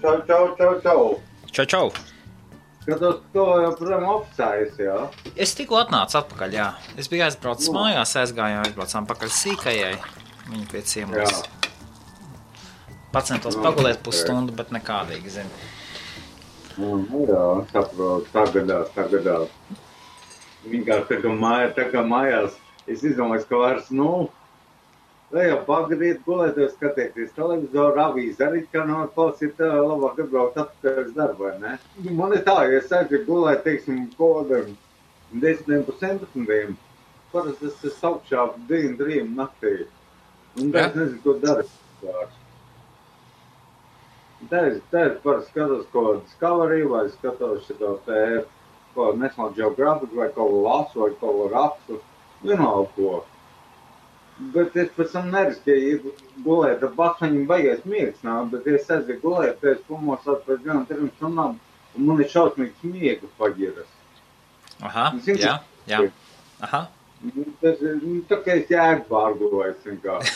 Čau. Čau. Skatos, to joprojām oficējas, jā? Es tikko atnācu atpakaļ, jā. Es biju aizbraucis mājās, aizbraucām pakaļ sīkajai. Viņa pie ciemos. Pacentos pagulēt pusstundu, bet nekādīgi, zini. Jā, saprotu, tagadās. Vienkārši tā kā mājās, es izdomāju, ka vairs, lai jau pagadīt, gulēties, skatieties televizoru, avīzi arī, kā klausīt, labāk atbraukt atpakaļ darbu, vai ne? Man ir tā, ja es aizgāju gulēt, teiksim, kodam 10-11, parasti es augšā 2-3 naktī. Un tā es nezinu, ko darīt. Tā es parasti skatos ko Discovery, vai skatos šito ko National Geographic, vai ko lasu, vai ko rakstu, vienalga ko. Bet es pēc tam neriskēju gulēt, ar bakšaņiem baigais miegs nāk, bet es aizgāju gulēt, es pamosāt pēc 1-3 stundām, un man ir šausmīgs miega paģiras. Aha, jā. Aha. Tas ir, tā kā es jēgu pārgulējis vienkārši.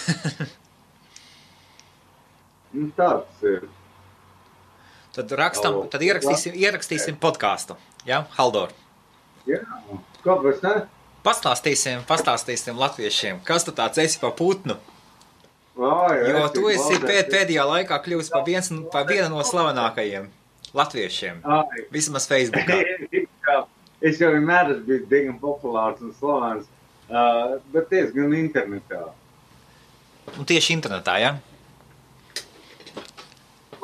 Tāds ir. Tad ierakstīsim podcastu, jā, Haldor? Jā, kāpēc ne? Pastāstīsim latviešiem, kas tu tāds esi pa putnu. Jā, jo tu esi pēdējā laikā kļuvis pa vienu no slavenākajiem latviešiem, vismaz Facebookā. Es jau vienmēr esmu bijis diezgan populārs un slavens, bet diezgan internetā. Un tieši internetā, jā?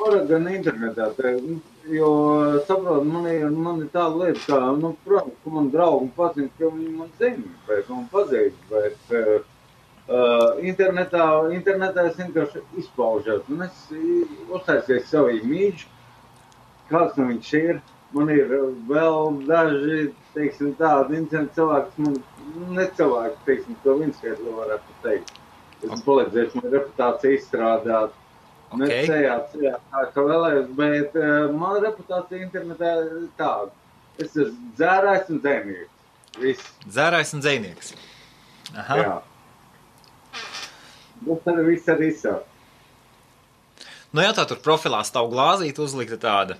Gan internetā, jo, saprot, man ir tāda lieta, kā, protams, ka man draugi pazina, ka viņi man zina, bet man pazīst, bet internetā es vienkārši izpaužos, un es uztaisies savu imīģu, kāds no viņš ir. Man ir vēl daži, teiksim, tādi incidenti cilvēki, man necilvēki, teiksim, to Vinskaitli varētu teikt. Es palīdzēšu man reputāciju izstrādāt. Necējāt, kā vēlējos, bet mana reputācija internetā ir tāda. Es esmu dzērājs un dzejnieks. Viss. Dzērājs un dzejnieks. Aha. Jā. Tas arī viss arī sāk. Jā, tā tur profilā stāv glāzīte uzlikta tāda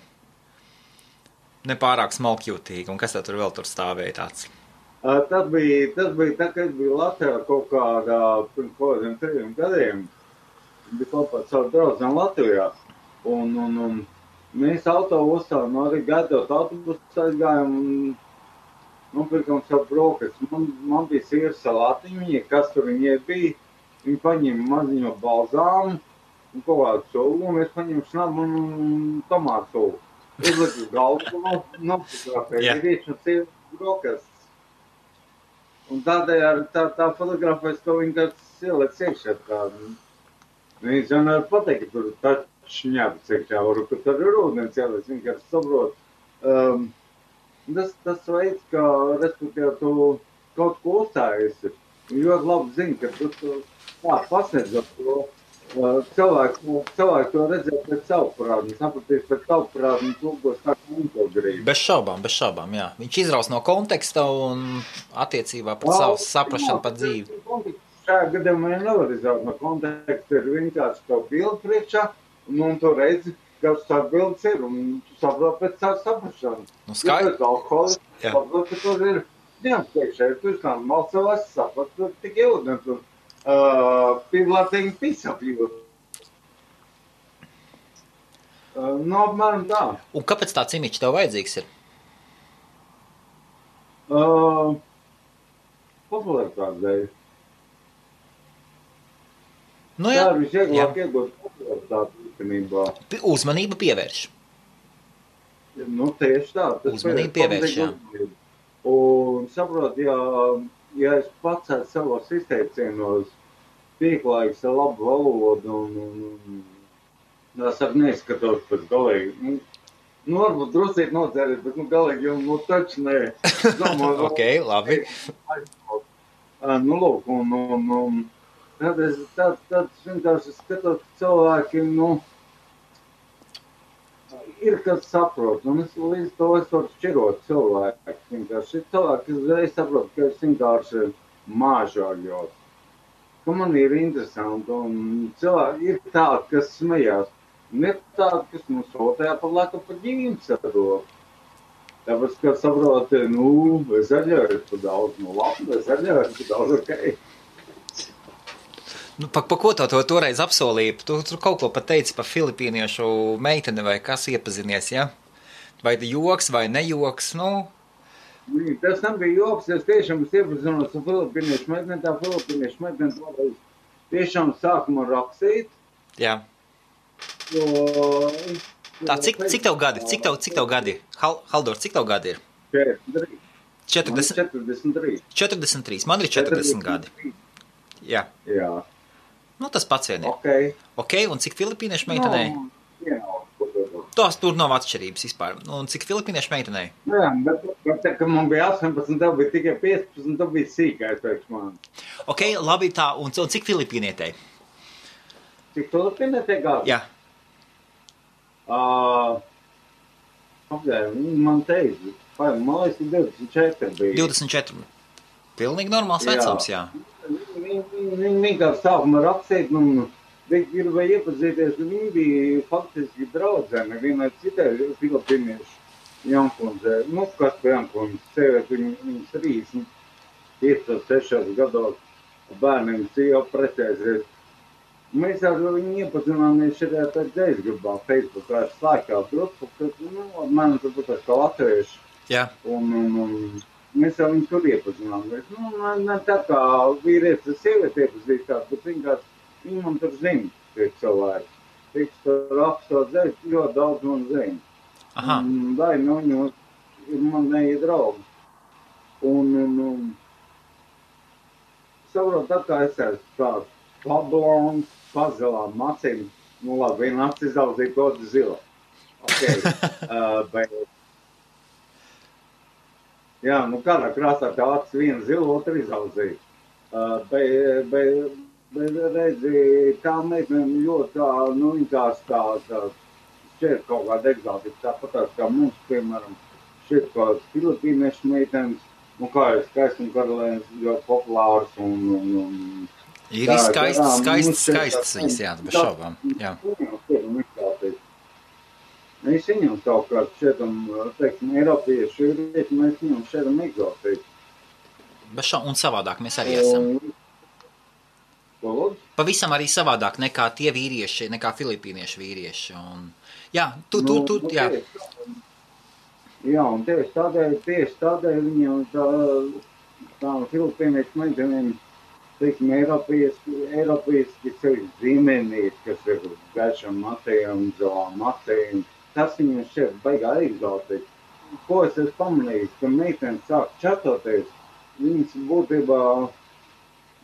nepārāk smalkjūtīga. Un kas tā tur vēl tur stāvēja tāds? Tas bija tā, ka es biju Latvijā kaut kādā pirms kādiem 3 gadiem. Bija kopā ar savu draudzeni Latvijā. Un mēs autobusā, arī gaidot autobusu aizgājām un nopirkām savu brokastu. Man bija sīra salātiņi, kas tur viņai bija. Viņi paņēma maziņo balzāmu un kaut kādu sulu, un es paņēmu šnabu un tomātu sulu. Uzliku galvu un nofotografēju vīriešu un sieviešu brokastus. Un tādējādi tā fotografēs, ko viņi kāds ieliec iekšā tādu. Viņš jau nevar pateikt, ka tur taču šņāpis iekšā, ka tur ir ūdens ieliec, vienkārši saprot. Tas veids, kā, respektīvi, tu kaut ko uzstājies, ļoti labi zini, ka tu pasniedzot to. Cilvēki to redzēja pēc savu parādu, sapratīs pēc savu parādu un tūkos tā, ka viņi to grib. Bez šaubām, jā. Viņš izraus no konteksta un attiecībā pret savu saprašanu par dzīvi. Šajā gadījumā nevar izraut no konteksta, ir vienkārši to bildi priekšā, un tu redzi, kas tā bildes ir, un tu saprot pēc savu saprašanu. Skaidrs. Ja alkoholis, saprot, ka tur ir dienas priekšā, ja tu izkādi malcevās, saprot, ka tik ūdens un people are taking piece of you. Apmēram tā. Un kāpēc tāds imiķis tev vajadzīgs ir? Popularitātes dēļ. Jā. Tā ir visvieglāk iegūt popularitāti īstenībā. Uzmanību pievērš. Tieši tā. Uzmanību pievērš, jā. Un saprot, ja es pats savos izteicienos pieklājīgs ar labu valodu un es arī neizskatos pēc galīgi. Varbūt drusīt nodzēries, bet galīgi jau taču nē. Ok, labi. Lūk, un tad vienkārši skatot, ka cilvēki, ir kas saprot, un es līdz to es varu šķirot cilvēku. Vienkārši ir cilvēki, kas uzreiz saprot, ka es vienkārši māžāļos. Ka man ir interesanti, un cilvēki ir tādi, kas smējās. Un ir tādi, kas mums sūtīja par laiku par ģīmes ar to. Tāpēc, ka saproti, zaļoju par daudz, labi, zaļoju par daudz, ok. Pa ko to toreiz apsolīja? Tu kaut ko pat teici par filipīniešu meiteni vai kas iepazinies, ja? Vai joks vai nejoks, Tas nebija joks, es tiešām iepazinos ar filipīniešu meiteni, tā filipīniešu meiteni toreiz tiešām sākuma rakstīt. Jā. Tā, cik tev gadi? Cik tev gadi? Haldor, cik tev gadi ir? 43. 43. Man ir 40 gadi. Jā. Tas pats vien ir. Ok, un cik filipīniešu meitenei? Tās tur nav atšķirības vispār. Un cik filipīniešu meitenei? Jā, bet tā, ka man bija 18, tev bija tikai 15, tev bija sīkais priekš man. Ok, labi tā, un cik filipīnietei? Cik filipīnietei gadi? Jā. Man teica, man liekas, 24 bija. 24. Pilnīgi normāls vecums, jā. Viņi vienkārši sākumā rakstīt, viņi gribēja iepazīties, viņi bija faktiski draudzēni vienai citai filipīniešu Jankundzē. Kas pa Jankundzē, sēvēt viņas 35-6 gados bērniem jau precēsies. Mēs ar viņu iepazināmies šajā pēc dzēsgrubā, Facebookā slēgtā grupu, kad, man turbūt kā latvieši. Jā. Un mēs jau viņu tur iepazināmies. Ne tā kā vīrietis ar sievieti iepazīstās, bet viņi man tur zina, tie cilvēki. Tiks tur rakstot dzēs, ļoti daudz man zina. Aha. Vai, viņi ir man neie draugi. Un saprot, tā kā es esmu tāds pablons, pazilām acīm. Labi, viena acis izaudzīja, otru zila. Ok. Jā, kādā krāsā tā acis viena zila, otru izaudzīja. Bet redzi, tā meitene ļoti tā, viņa tā šķiet kaut kāda egzotika, tāpatās kā mums, piemēram, šķiet kāds filipīniešu meitenes, kā ir skaists un karalēns ļoti populārs un ir skaists viņas, jā, bez šaubām, jā. Mēs viņam savukārt šķietam, teiksim, Eiropieši, mēs viņam šķietam egzotiski. Bez šaubām, un savādāk mēs arī esam. Pavisam arī savādāk nekā tie vīrieši, nekā filipīniešu vīrieši. Un, jā, jā. Jā, un tieši tādēļ viņam tā filipīniešu meitenēm, teiksim, Eiropieši sevi zīmenīt, kas ir gaišam matējam, zolām matējam, tas viņam šķiet baigā egzotiski. Ko es esmu pamanījis, ka meitenes sāk čatoties, viņas būtībā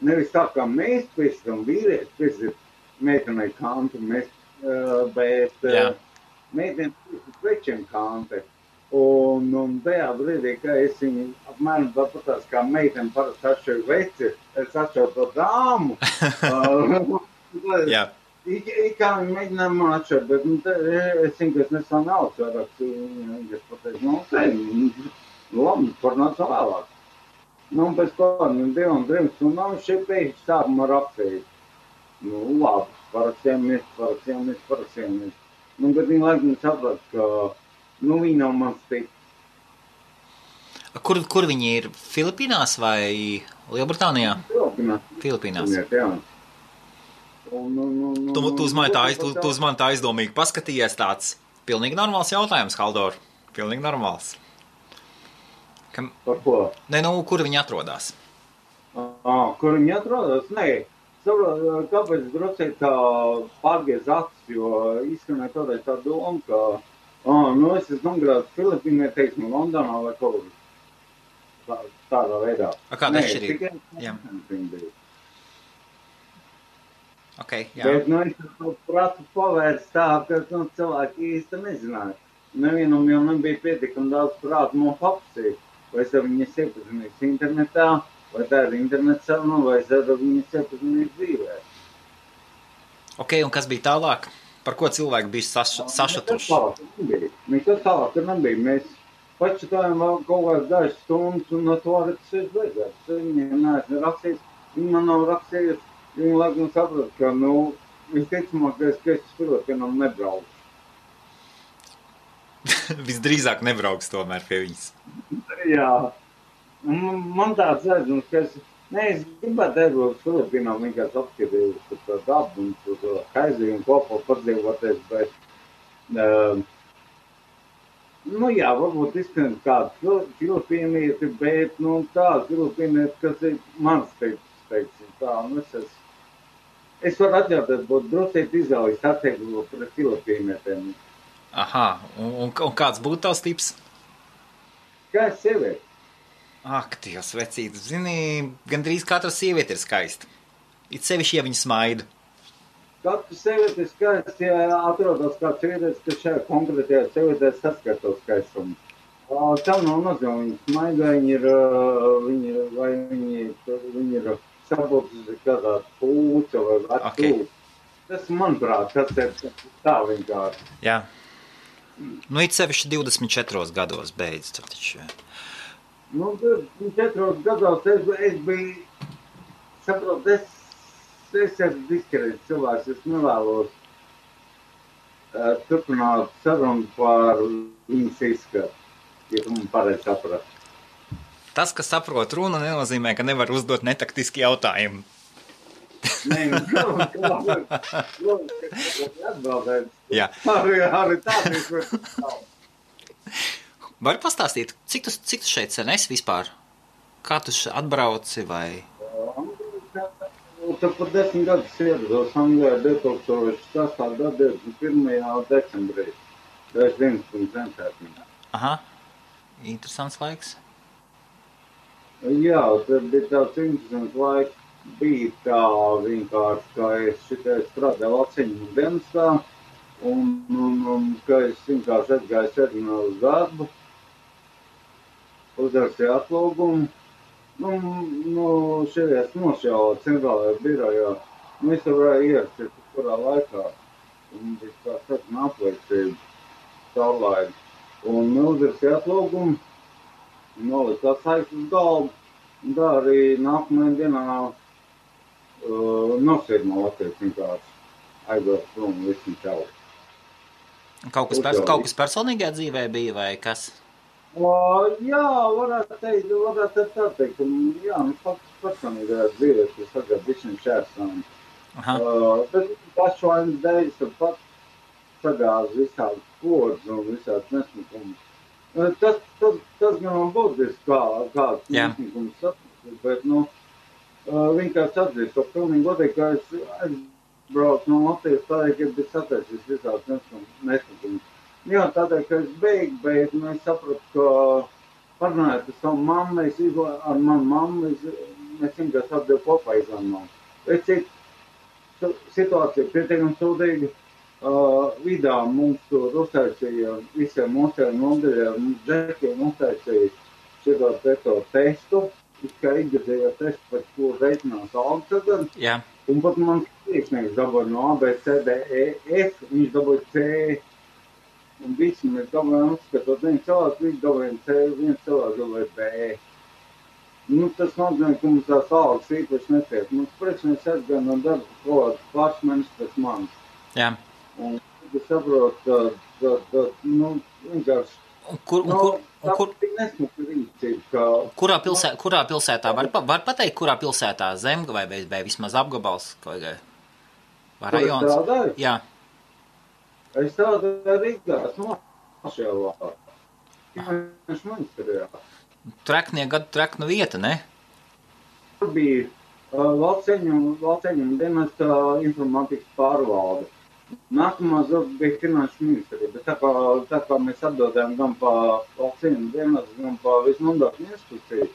nevis tā kā mēs pēcam vīrieši, pēcam meitenei kantu, bet meitenes pēcam večiem kanti. Un tajā brīdī, ka es viņu apmēram tāpatās kā meiteni parasti atšķiru veci, es atšķiru to dāmu. Jā. Kā viņi mēģināja man atšķirt, bet es zinu, ka es nesā naudas vairāk. Es pateicu, labi, parunāsim vēlāk. Pēc kādiem 2-3 stundām šeit pēkšņi sākumā rakstīt. Labi, parakstījamies. Bet viņi laikam saprat, ka viņi nav mans tips. Kur viņi ir? Filipīnās vai Lielbritānijā? Filipīnās. Jā. Tu uz mani tā aizdomīgi paskatījies tāds pilnīgi normāls jautājums, Haldor. Pilnīgi normāls. Par ko? Kur viņi atrodas? Kur viņi atrodas? Nē, saprot, kāpēc drusīt tā pārgies acis, jo izskanēja toreiz tā doma, ka es esmu nomgrāts Filipīnē, teiksim, Londonā vai kaut kur tādā veidā. Kāda atšķirība? Jā. Okay, jā. Bet es to pratu pavērst tā, ka cilvēki īsti nezināja. Nevienam jau nebija pietiekami daudz prātu man papsīt. Vai es ar viņas iepazinīs internetā, vai tā ir internets saruna, vai es ar viņas iepazinīs dzīvē. Ok, un kas bija tālāk? Par ko cilvēki bija sašatuši? Nekas tālāk nebija. Mēs pačatājām vēl kaut kādas dažas stundas, un no to arī tas ir beidzēts. Viņiem neesmu rakstījis, viņi man nav rakstījis. Viņi laikam saprot, ka, visticamākais, ka es Filipīnām nebraucu. Visdrīzāk nebrauks tomēr pie viņas. Jā. Man tāds redzams, ka es gribētu aizbraukt Filipīnām, vienkārši apskatījos par to dabu un par to haizījumu kopā padzīvoties, bet, jā, varbūt izskan kādu filipīnieti, bet, tā filipīnieti, kas ir mans tips, teiksim, tā, es varu atļauties būt drusīt izvēlīgs attiekļu pret filipīnietiem. Aha, un kāds būtu tavs tips? Kā es sievieti? Ak, Dievs, vecīt, zini, gandrīz katra sieviete ir skaista. It sevišķi, ja viņa smaida. Katra sieviete ir skaista, ja atrodas kāds sievietes, kas šajā konkrētajā sievietē saskato skaistumu. Tam nav nozīme, viņa smaida, viņi ir sabūtusi kādā pūca vai atpūca. Tas, manuprāt, tas ir tā vienkārši. Jā. It sevišķi 24 gados beidz, tad taču. 4 gados es biju, saprotu, es esmu diskrēts cilvēks, es nevēlos turpināt sarunu par viņas izskatu, ja tu man pareizi saprast. Tas, ka saprot runu, nenozīmē, ka nevar uzdot netaktiski jautājumu. Nē, atbildēt. Jā. Arī tādi. Vari pastāstīt, cik tu šeit sen esi vispār? Kā tu atbrauci vai? Tad pat 10 gadus ierados Anglijā 2006. gada 21. decembrī. Es 11. centētnē. Aha, interesants laiks. Jā, tad bija tāds interesants laiks. Bija tā vienkārši, ka es šitai strādāju Latvijas dienestā un ka es vienkārši atgāju sēdinā uz darbu, uzrakstīju atlūgumu. Šeit nošāvā centrālajā birojā. Es varēju ierasties kurā laikā. Un bija tā saruna apliecība saulaini. Un uzrakstīju atlūgumu, noliku tā saiktu uz galvu. Un tā arī nākamajā dienā nosēd no Latvijas vienkārši aizvēt prom visam čau. Kaut kas personīgajā dzīvē bija vai kas? Jā, varētu tā teikt. Jā, personīgajā dzīvē tas tagad višķiņ šērsām. Bet pašvainas dēļ pat sagāz visādi kodus un visādi nesmukumus. Tas gan būtiski kāds nesmukums saprast, bet, vienkārši atzīst to pilnīgi godīgi, ka es aizbraucu no Latvijas tādēļ, ka bija sataisījis visāds nesmukums. Jā, tādēļ, ka es beigtu, bet es sapratu, ka parunājot ar savu mammu, ar manu mammu, mēs vienkārši atdevu kopā izlēmām. Situācija pietiekami sūdīga. Vidā mums tur uztaisīja visiem mūsējiem nodaļiem, mums džekiem uztaisīja šito testu, kā ikgadējā testu, par ko reiķinās algu tagad. Jā. Un pat mans priekšnieks dabūja no A, B, C, D, E, F, viņš dabūja C. Un visi mēs dabūjām uzskatot, viens cilvēks, visi dabūjām C, viens cilvēks dabūja B. Tas nozīmē, ka mums tās algas īpaši netiek. Mums priekšnieks aizgāja no darba kaut pāris mēnešus pēc manis. Jā. Un es saprotu, ka vienkārši Kurā pilsētā? Var pateikt, kurā pilsētā? Zemga vai vismaz apgabals? Vai rajons? Strādāju? Jā. Es strādāju Rīgā, Smašēlā. Finanšu ministrijā. Trekna vieta, ne? Tur bija Valceņu dienesta informātikas pārvalde. Nākamā bija finanšu ministrija, bet tā kā mēs atdodējām gan pa Valceņu dienestu, gan pa visu mandātu institūciju,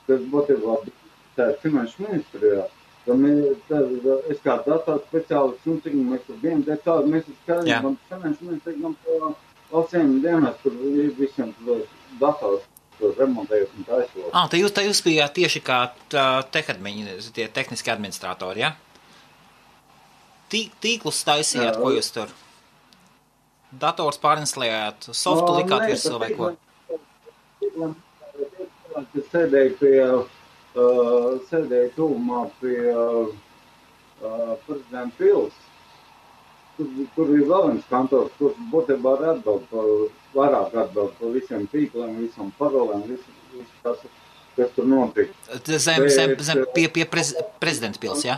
kas būtībā bija finanšu ministrijā, tad es kā dators speciālists, cik mēs tur bijām, mēs skatījām gan finanšu ministriju, gan pa Valceņu dienestu, tur visiem dators remontējot un taisot. Tā jūs bijāt tieši kā tie tehniski administratori, ja? Tīklus taisījāt, ko jūs tur? Dators pārinstallējāt, softu likāt virsū vai ko? Es sēdēju tuvumā pie prezidenta pils. Tur ir vēl viens kantors, kurš būtībā vairāk atbild par visiem tīkliem, visam parolēm, visu kas tur notika. Pie prezidenta pils, jā?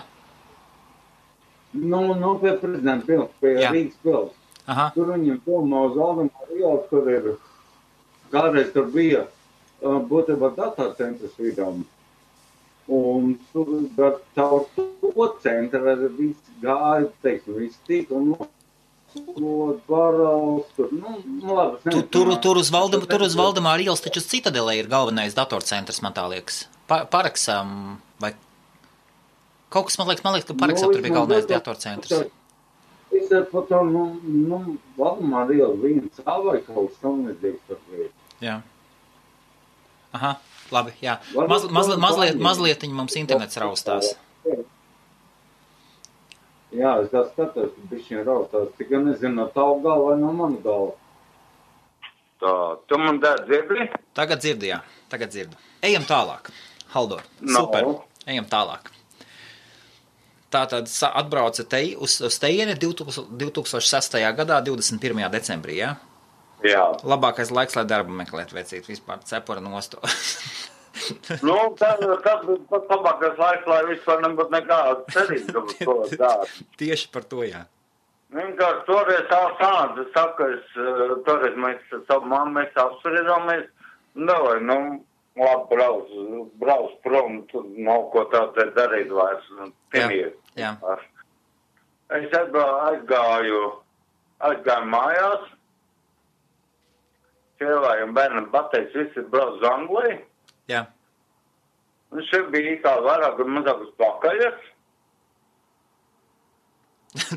Nu, pie prezidenta pils, pie Rīgas pils. Aha. Tur viņam domā uz Valdemāra ielas, tur ir, kādreiz tur bija būtībā datorcentrs vidām. Un tur caur to centru viss gāja, teiksim, viss tika un paraugs, tur, labi. Tur uz Valdemāra ielas taču Citadelē ir galvenais datorcentrs, man tā liekas. Paraksam, vai kaut kas, man liekas, ka Paraksam tur bija galvenais datorcentrs. Es ar par to, Valdemāra iela viens vai kaut kas tam nedzīgs par lietu. Jā. Aha. Labi, jā. Mazliet mums internets raustās. Jā, es tā skatos, ka bišķiņ raustās. Tikai nezinu, no tavu galvu vai no manu galvu. Tā, tu man dzirdi? Tagad dzirdi, jā. Tagad dzirdu. Ejam tālāk. Haldor, super. Ejam tālāk. Tātad atbrauca uz tejieni 2006. gadā, 21. decembrī, jā? Jā. Labākais laiks, lai darbu meklēt, vecīt, vispār cepura nosto. Tas bija pat labākais laiks, lai vispār nebūtu nekāda cerība uz to dārbu. Tieši par to, jā. Vienkārši toreiz tā sanāca, es saku, toreiz mēs savu mammu, mēs apspriedāmies, labi, brauc prom, tur nav ko tā darīt vairs, Jā. Es aizgāju mājās, sievai un bērnam pateicis, visi brauc uz Angliju. Jā. Un šeit bija kā vairāk un mazāk uz pakaļas.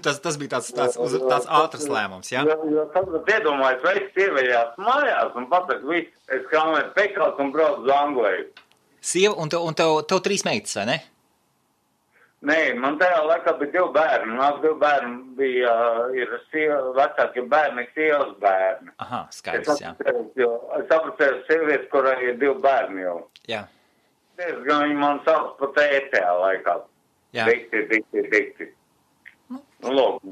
Tas bija tāds ātrs lēmums, jā? Jo tagad iedomājies, vai es sievējās mājās un pateicu, viss, es krāmēju pekals un braucu uz Angliju. Sieva, un tev 3 meitas, vai ne? Nē, man tajā laikā bija 2 bērni. Mās 2 bērni ir vecākie bērni, sievas bērni. Aha, skaidrs, jā. Es apprecēju sievieti, kurai ir 2 bērni jau. Jā. Diezgan viņi man sauc par tētajā laikā. Jā. Dikti. Lūk.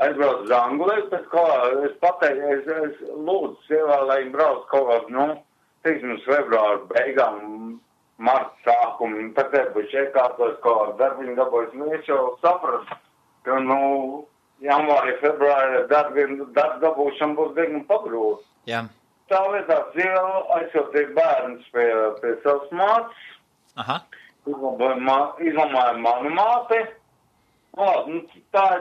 Aizbraucu uz Angliju, pēc kā es pateicu, es lūdzu sievā, lai viņi brauc kaut kā, teiksim, februāra beigām, marta sākumu, tad būs iekārtos kaut darbiņu dabūjas. Es jau sapratu, ka, janvārī, februārī darbu dabūšana būs diezgan pagrūta. Jā. Tā vietā sieva aizsūtīja bērnus pie savas mātes. Aha. Izlamāja manu māti. Tas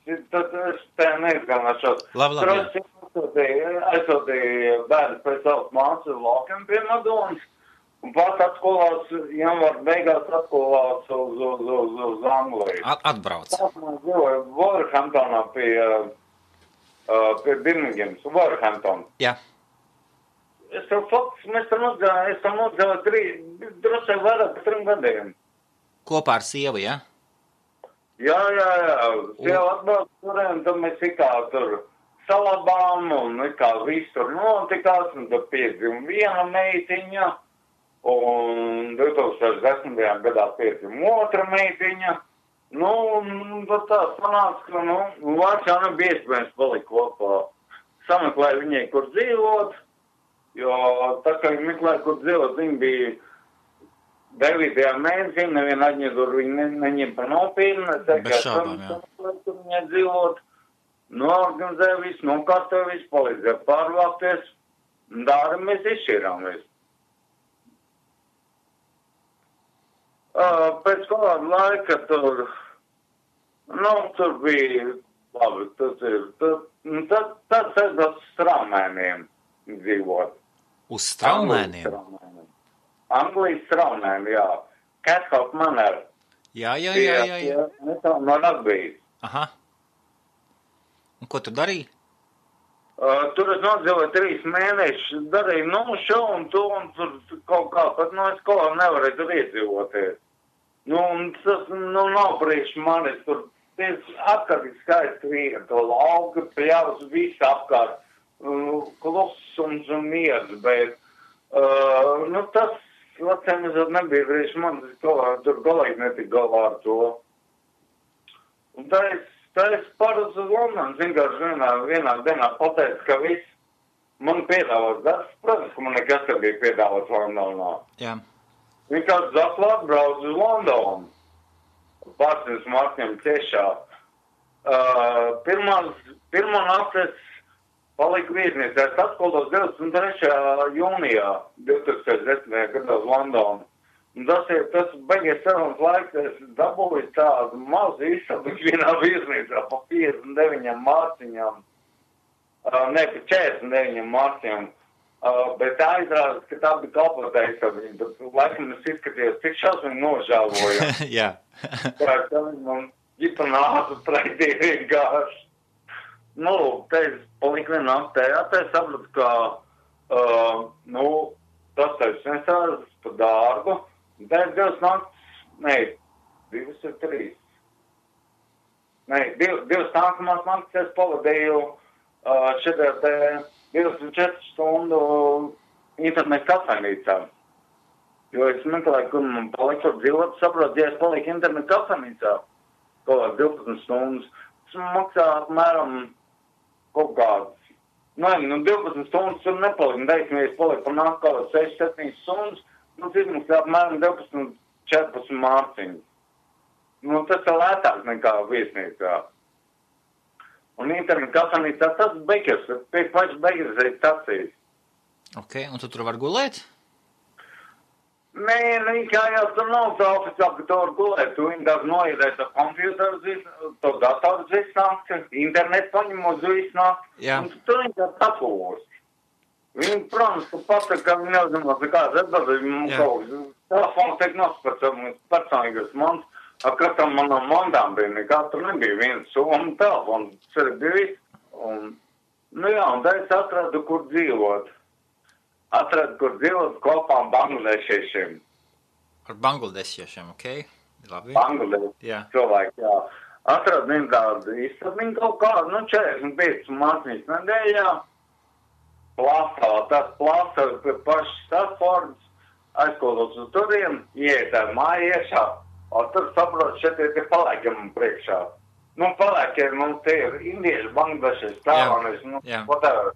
es te neizgānāšos. Labi. Aizsūtīja bērnus pie savas mātes uz laukiem pie Madonas. Un pats atskolās, janvāra beigās atskolās uz Angliju. Atbrauc. Tas man dzīvoja Wolverhamptonā pie Birmingemas, Wolverhampton. Jā. Mēs tam nogāju drusku vairāk par 3 gadiem. Kopā ar sievu, jā? Jā. Sieva atbrauc turēm, tad mēs tur salabām un viss tur notikās, un tad piedzima viena meitiņa. Un 2010. gadā piedzima otra meitiņa. Tad tā sanāca, ka, vairs jau nebija iespējams palikt kopā. Sameklēja viņai, kur dzīvot, jo tā kā viņi meklēja, kur dzīvot, viņi bija 9. mēnesī, neviena aģentūra viņi neņem pa nopietni. Bez šaubām, jā. Tur viņai dzīvot, noorganizēja visu, nokārtoja visu, palīdzēja pārvākties, un dāri mēs izšķirāmies. Pēc kāda laika tur bija, labi, tas ir uz Straumēniem dzīvot. Uz Straumēniem? Anglijas Straumēm, jā. Cathope Manor. Jā. No Latvijas. Aha. Un ko tu darīji? Tur es nodzīvoju 3 mēnešus, darīju, šo un to, un tur kaut kā, pat, es kaut kā nevarēju tur iedzīvoties. Un tas, nav priekš manis, tur apkārt skaisti vieta, lauka, pļavas, viss apkārt, klusums un miers, bet, tas veciem nebija brīži, man tur galīgi netika galā ar to. Un tā es pāruz uz Londonu, vienkārši vienā dienā pateicu, ka viss man piedāvās darbs. Protams, ka man nekas te bija piedāvāts Londonā. Jā. Vienkārši atklāt brauc uz Londonu. Pārsniedz Markiem tiešā. Pirmā naktis paliku viesnīcā. Es atskolos 23. jūnijā 2010. gadā uz Londonu. Un tas beigies sarunas laiks, es dabūju tādu mazu izsabu vienā viesnīcā pa 59 mārciņām. Ne, pa 49 mārciņām. Bet tā izrādās, ka tā bija kalpotā izsabiņa. Bet laikam es izskatījos, cik šausmīgi nožēloju. Jā. Tā man ģipa nāca pretī vienkārši. Nu, te es paliku vienā naktē. Te es sapratu, ka, tas taču nesās pa dārgu. Tā ir 2 naktis, ne, 2 ir 3. Ne, 2 nākamās naktis es pavadīju šitā te 24 stundu internetu kafejnīcā. Jo es meklēju, kur man paliku dzīvot, saprotu, ja es paliku internetu kafejnīcā kaut 12 stundas, tas maksā apmēram kaut kāds. Nu, 12 stundas tur nepaliku, teiksim, ja es paliku par nāk kaut 6-7 stundas, cik apmēram 12-14 mārciņu. Tas ir lētāk nekā viesnīcā. Un internetu kafejnīcā tas beigas, pēc pašas beigas ir stacijas. Ok, un tu tur var gulēt? Nē, kā jau tur nav tā oficiāli, ka tu var gulēt. Tu vienkārši noiedēs ar kompjuteru, to datoru visnākt, internetu paņemot visnākt, un tu vienkārši atpūst. Viņi, protams, ka pasaka, ka viņi neuzzinās nekādas atbildības, mums kaut kas. Telefons tiek nospēc personīgas mans, katram manam mandām bija nekā, tur nebija viens soma telefons, tas bija viss. Un tā es atradu, kur dzīvot. Kopā bangladešiešiem. Ar bangladešiešiem, ok? Labi. Bangladeši cilvēki, jā. Atradu vienu tādu izsabiņu kaut kādu, 45 mārciņas nedēļā. Tas plāsās pie pašas Stratfordas, aizkodos uz turien, ieiet ar māju iešā, un tur saprot, šeit ir tie palēkiem priekšā. Palēkiem, tie ir indieši, bangladeši, stāvaneši, whatever.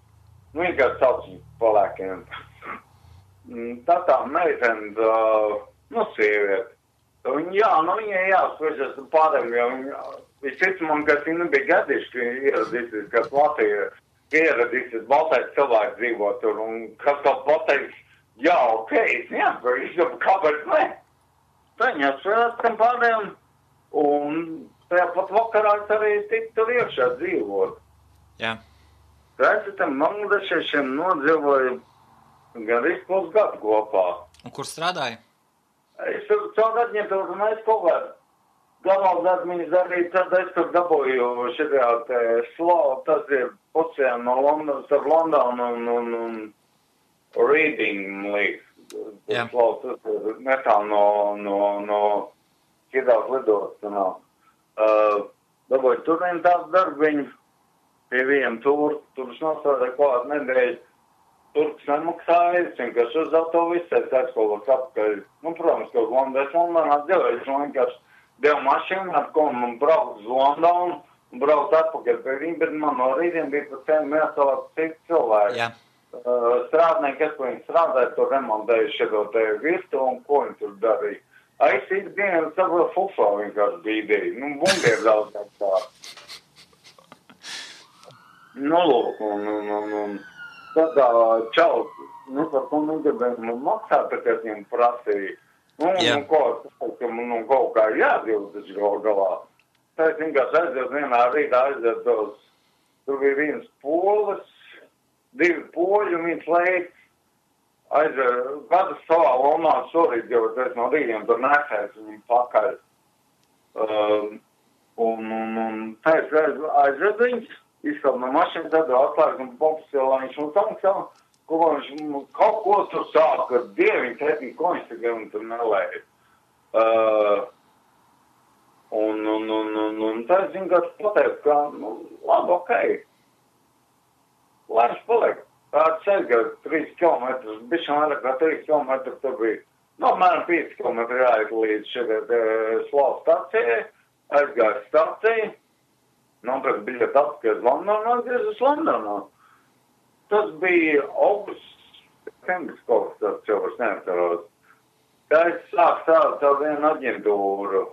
Vienkārši sauc palēkiem. Tā meitene, sieviete. Viņai jāspēšas pārējiem, jo viņš man, ka viņi nebija gadījuši, ka ieradīsies, ka Latvija ieradīsies baltais cilvēks dzīvo tur, un kas to pateiks, ok, es neatvarīšu, kāpēc ne? Viņa spēlēt tam pārējiem, un tajā pat vakarā es arī tik tur iekšā dzīvot. Jā. Es tam bangladešiešiem nodzīvoju gandrīz pusgadu kopā. Un kur strādāji? Es tur caur aģentūru, un es kaut kādu galvās atmiņas darīju, tad es tur dabūju šitā te slow, tas ir pusē no Londonas, ar Londonu un Reading League. Slow, tas ir netālu no šitās lidošanā. Dabūju tur vien tāds darbiņu pie vienam tur es nostrādāju kādu nedēļu. Turks nemaksāja, es vienkārši uz autovisu, es aizkolos apakaļ. Protams, ka uz Londonā dzīvoju, es vienkārši devu mašīnu, ar ko man braukt uz Londonu un braukt atpakaļ pie viņiem, bet man no rītiem bija pa cenu jāsalāt citu cilvēku. Jā. Strādnieki, kas viņi strādāja, tur remontēju šito te virtu un ko viņi tur darīja. Es ikdienu saprotu fufā vienkārši bīdēju. Bungieri daudz tā. Lūk, un tad čau, par ko negribēju man maksāt, tā kā viņam prasīja. Kaut kā jādzīvot taču galā. Tā es vienkārši aiziet vienā rītā aiziet tur bija viens polis, 2 poļi un viens leiks. Aiziet, katrs savā lomā šorīt, jo es no rītiem tur nesēs viņam pakaļ. Un tā es aiziet viņus, izskap no mašīnas, tad atklājas un popsilā viņš mums samaksā. Kaut ko tur sāk ar dieviņu, tētiņu, ko viņš tur nelēja. Un tā es vienkārši pateicu, ka, labi, okei. Lai viņš paliek. Tā ceļgā 3 kilometrus, bišķi vairāk kā 3 kilometrus tur bija. Mēram 5 km jāiet līdz šeit Slavas stacijai, aizgāju staciju, nopirkt biļeti atpakaļ uz Londonu, atgriez uz Londonu. Tas bija augusts, septembris kaut kas tāds, jau vairs neatceros. Tā es sāku strādāt ar vienu aģentūru,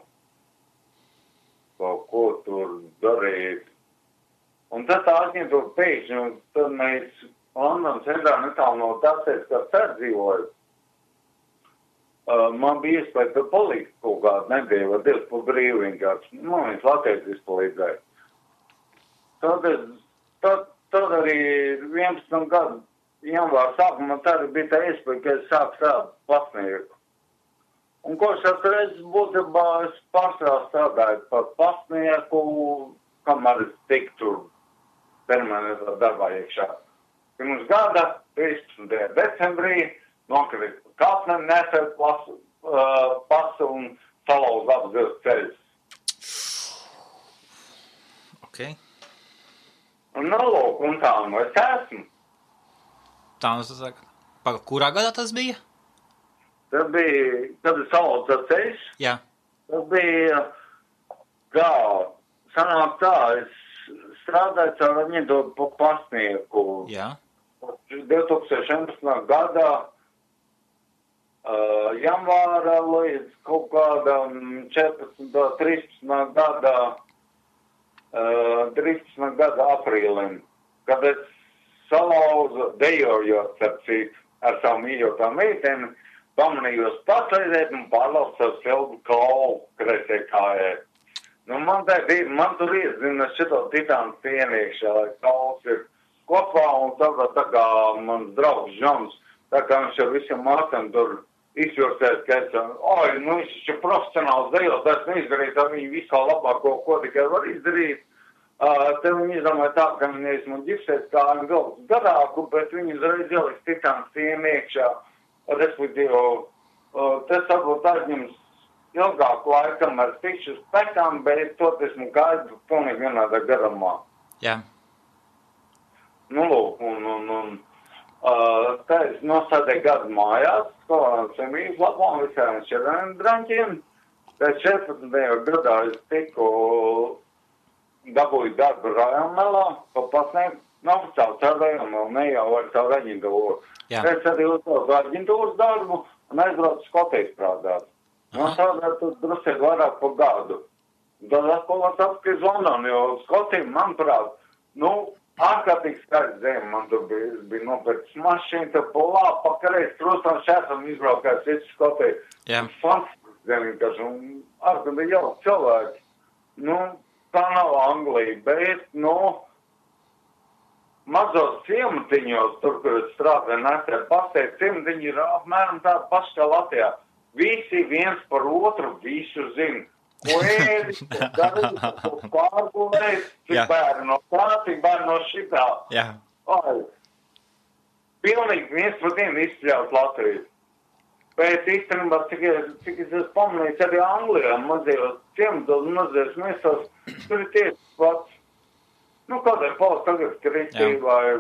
kaut ko tur darīt. Un tad tā aģentūra pēkšņi, un tad mēs Londonas centrā netālu no tāpēc, kā dzīvoju. Man bija iespēja tur palikt kaut kādu nedēļu vai 2 pa brīvu vienkārši. Man viens latviečs izpalīdzēja. Tad arī 11 gadu janvāra sākumā tad bija tā iespēja, ka es sāku strādāt pasnieku. Un ko es atreiz būtībā es pārsvarā strādāju par pasnieku, kamēr es tik tur permanentā darbā iekšā. Pirms gada, 13. decembrī, nokrīt kāpne, nesēt pasu un salauz abas 2 ceļus. Ok. Un nolūk, un tā nu es esmu. Tā nu saka, kurā gadā tas bija? Tas bija, kad es salauzu tas ceļus. Jā. Tas bija, kā, sanāk tā, es strādāju caur viņu pa pasnieku. Jā. 2011. gadā janvāra līdz kaut kādam 13. gada aprīlim, kad es salauzu dejojot ar savu mīļotā meiteni, pamanījos pasaidēt un pārlauzt savu sildu kaulu kreisē kājai. Nu, man tur iezina šito titānu pieniekšā, lai kauls ir kopā, un tā kā mans draugs Žons, tā kā viņš ar visiem mācām tur izjūrsēs, ka viņš ir profesionāls dejotājs, neizdarīt ar viņu visu labāko, ko tikai var izdarīt. Te viņi izdomāja tā, ka viņi man ģipsēs kā galvas garāku, bet viņi uzreiz ieliks titānu pieniekšā, respektīvi, tas varbūt aizņems ilgāku laikam ar tikšu spekām, bet to esmu gaidu pilnīgi vienādā garumā. Jā. Nu, lūk, un tā es nosādēju gadu mājās, semijas labām visiem šķirēm draņķiem. Tā 14. gadā es tiku dabūju darbu Rajonmelā, pa pasniegt, nav savu Rajonmelu, ne jau ar savu aģentūru. Es arī uzsaucu aģentūras darbu un aizbraucu Skotijas strādāt. No strādāt tur drusēt vairāk pa gadu. Tad atkal atpakaļ uz Londonu, jo Skotija, manuprāt, ārkārtīgi skaidrs zem, man tur bija nopērts mašīna, tad polā, pakareiz, trūstam šēsam izbraukājis visu Skotiju. Jā. Fantastiski zem, vienkārši, un ārkārtīgi jau cilvēki. Tā nav Anglija, bet, mazos ciematiņos, tur, kur es strādāju, nesē pasteikt, ciematiņi ir apmēram tāda paša kā Latvijā. Visi viens par otru visu zina. Ko ēdis, ko darīt, ko pārgulēt, cik bērni no tā, cik bērni no šitā. Jā. Pilnīgi viens par vienu izspļaut Latviju. Bet īstenībā, cik es pamanīju, arī Anglijā mazajos ciematos, mazajos miestos, tur ir tieši pats. Kādai valsts tagad kristī vai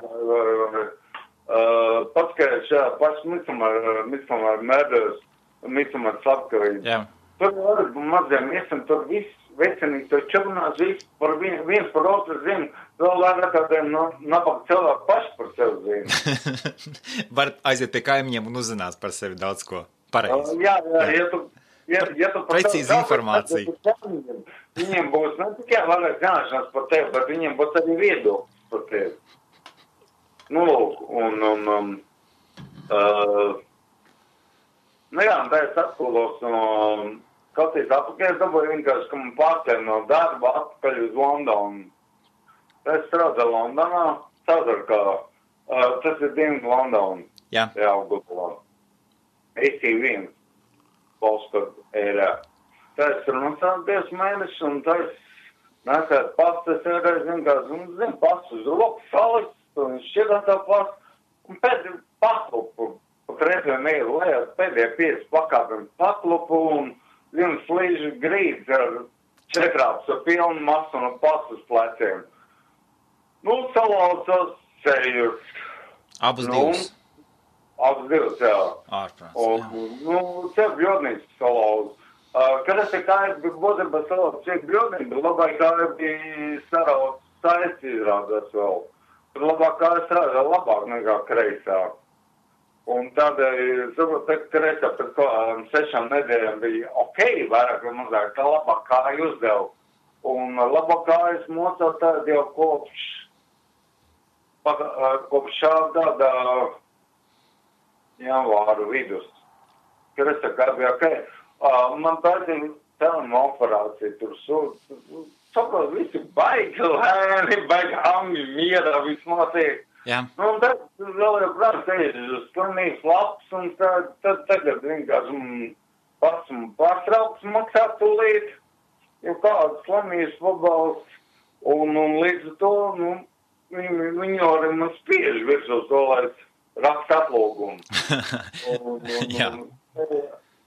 paskaidrs šajā paši Midsommar Murders, Midsommar slepkavība. Jā. Tur arī maziem miestam, tur viss vecinīgi, tur čurnās, viens par otru zina, vēl vairāk kādiem nabaga cilvēku paši par sevi zina. Var aiziet pie kaimiņiem un uzzināt par sevi daudz ko pareizi. Jā, ja tu precīzi informācija. Viņiem būs ne tikai vairāk zināšanas par tevi, bet viņiem būs arī viedoklis par tevi. Lūk, tā es atkulos no Skotijas atpakaļ, es dabūju vienkārši, ka man pārcēl no darba atpakaļ uz Londonu. Es strādāju Londonā, tas ir Dienvidu Londonu. Jā. Jā, Gudulā. AC1, postcode ērā. Tā es tur strādāju 2 mēnešus, un tā es nesētu pastas ērā, zinu, pastu uz roku, salikt, un šķietā tā pastu, un pēdējā paklupu. Reizēm eju lejā, pēdējā 5 pakāpēm paklupu un viens slīžu grīds ar 4 ar pilnu masu un pasu uz pleciem. Salaucos ceļus. Abus divus? Abas divas, jā. Ārprāts, un, čia bļodnīcas salauz. Kad es te kāju būtībā salauz, čia bļodnīca, labai kāju bija sarauz saisti izrādās vēl. Tad labāk kāju strādā labāk nekā kreisā. Un tādēļ, saprot, kreisā pēc kaut 6 nedēļām bija vairāk vai mazāk, tā labāk kāju uzdevu. Un labāk kājas mocot tādu jau kopš šā gada janvāra vidus. Kreisā kāju bija man taisīja telma operācija, tur saprot, visi baigi lēni, baigi angļi mierā, viss notiek. Jā. Nu, un tad vēl jau prāt teicis uz slimības lapas, un tad tagad vienkārši pats pārtraukts maksāt tūlīt, jau kādas slimības pabalsts, un līdz to, viņi arī man spiež virsūs to, lai raksta atlūgumu. Jā.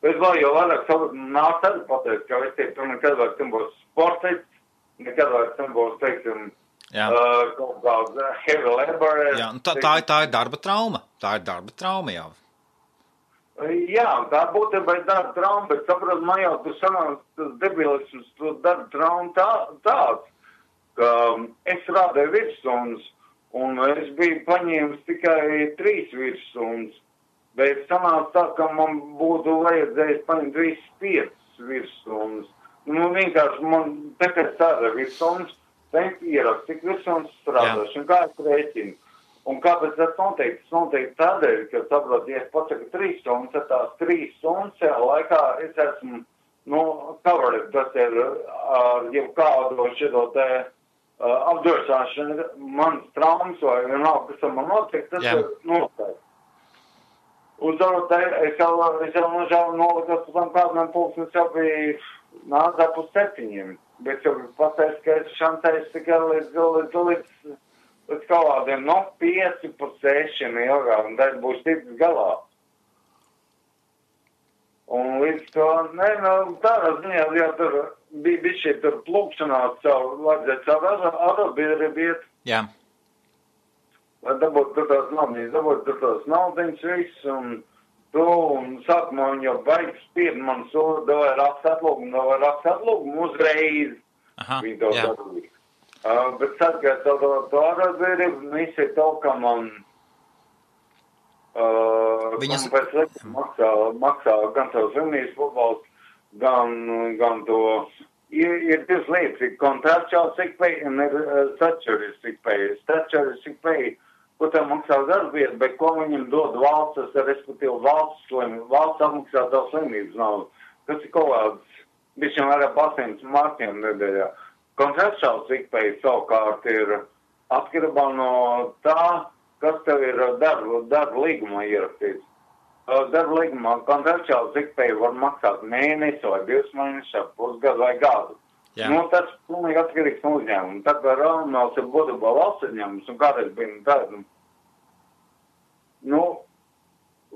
Bet vēl jau vairāk nāk tad pateikt, ka es teiktu, tu nekad vairs tam būs sportists, nekad vairs tam būs, teiksim, kaut kāds heavy labor. Jā, tā ir darba trauma. Tā ir darba trauma jau. Jā, tā būtībā ir darba trauma, bet saprot, man jau tu sanāk tas debilisms, tu darba trauma tāds, ka es strādāju virstundas, un es biju paņēmis tikai 3 virstundas, bet sanāk tā, ka man būtu vajadzējis paņemt 5 virstundas. Nu, vienkārši man tikai strādāju virstundas, Tenk ierakst, cik virstundas strādāšu, un kā es rēķinu. Un kāpēc tas noteikti? Tas noteikti tādēļ, ka, saprot, ja es pasaku 3 stundas, tad tās 3 stundas šajā laikā es esmu, covered, tas ir ar jebkādu šito te apdrošināšanu, manas traumas vai vienalga, kas ar man notiek, tas ir noteikti. Un tad es jau nolikas pēc tam kādam pulksnes jau bija nācā pus 7. Bet jau pateicu, ka es šancēju tikai līdz kādiem 5 pa 6 ilgāk, un tad būs ticis galā. Un līdz to, tādā ziņā, ja tur bija šī tur plūkšanās vajadzētu savu arobiedrību. Jā. Lai dabūtu tur tās naudiņas viss, un sākumā viņi jau baigi spied man davai raksta atlūgumu uzreiz. Viņi to darīja. Bet tad, kad to arobiedrību, visi to, ka man pēc likuma maksā gan savu slimības pabalstu, gan to. Ir 2 lietas, ir contractual sick pay un ir statutory sick pay. Statutory sick pay, ko tev maksā darbvieta, bet ko viņam dod valsts, respektīvi valsts apmaksā tev slimības naudu. Tas ir kaut kāds, bišķi vairāk 800 markiem nedēļā. Contractual sick pay savukārt ir atkarībā no tā, kas tev ir darba līgumā ierakstīts. Darba līgumā contractual sick pay var maksāt mēnesi vai 2 mēnešus, pusgadu vai gadu. Tas pilnīgi atkarīgs no uzņēmuma. Tā kā Rāmēls ir būtībā valsts uzņēmums, un kādreiz bija tāda,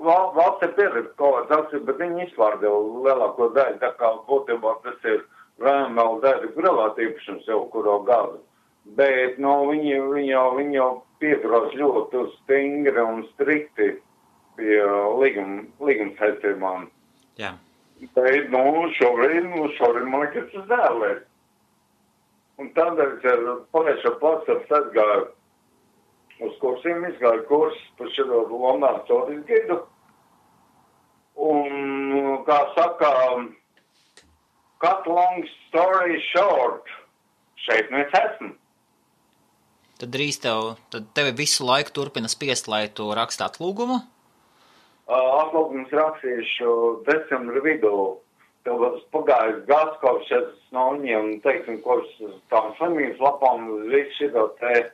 valsts ir pieredze kaut kāds, bet viņi izpārdeva lielāko daļu, tā kā būtībā tas ir Rāmēl daļa privāta īpašums jau kuro gadu. Bet, viņi jau pieturās ļoti stingri un strikti pie līguma saistībām. Jā. Bet, šobrīd man liekas tas dēlēs. Un tādēļ ar pagājušo pats aizgāju uz kursiem, izgāju kursus par šito Londonas Sotis gidu. Un, kā saka, cut long story short, šeit mēs esam. Tad drīz tevi visu laiku turpina spiest, lai tu raksti atlūgumu? Atlūgums rakstīšu decembra vidū. Tev pagājis gads, kopš es no viņiem, teiksim, kopš tām slimības lapām, visu šito te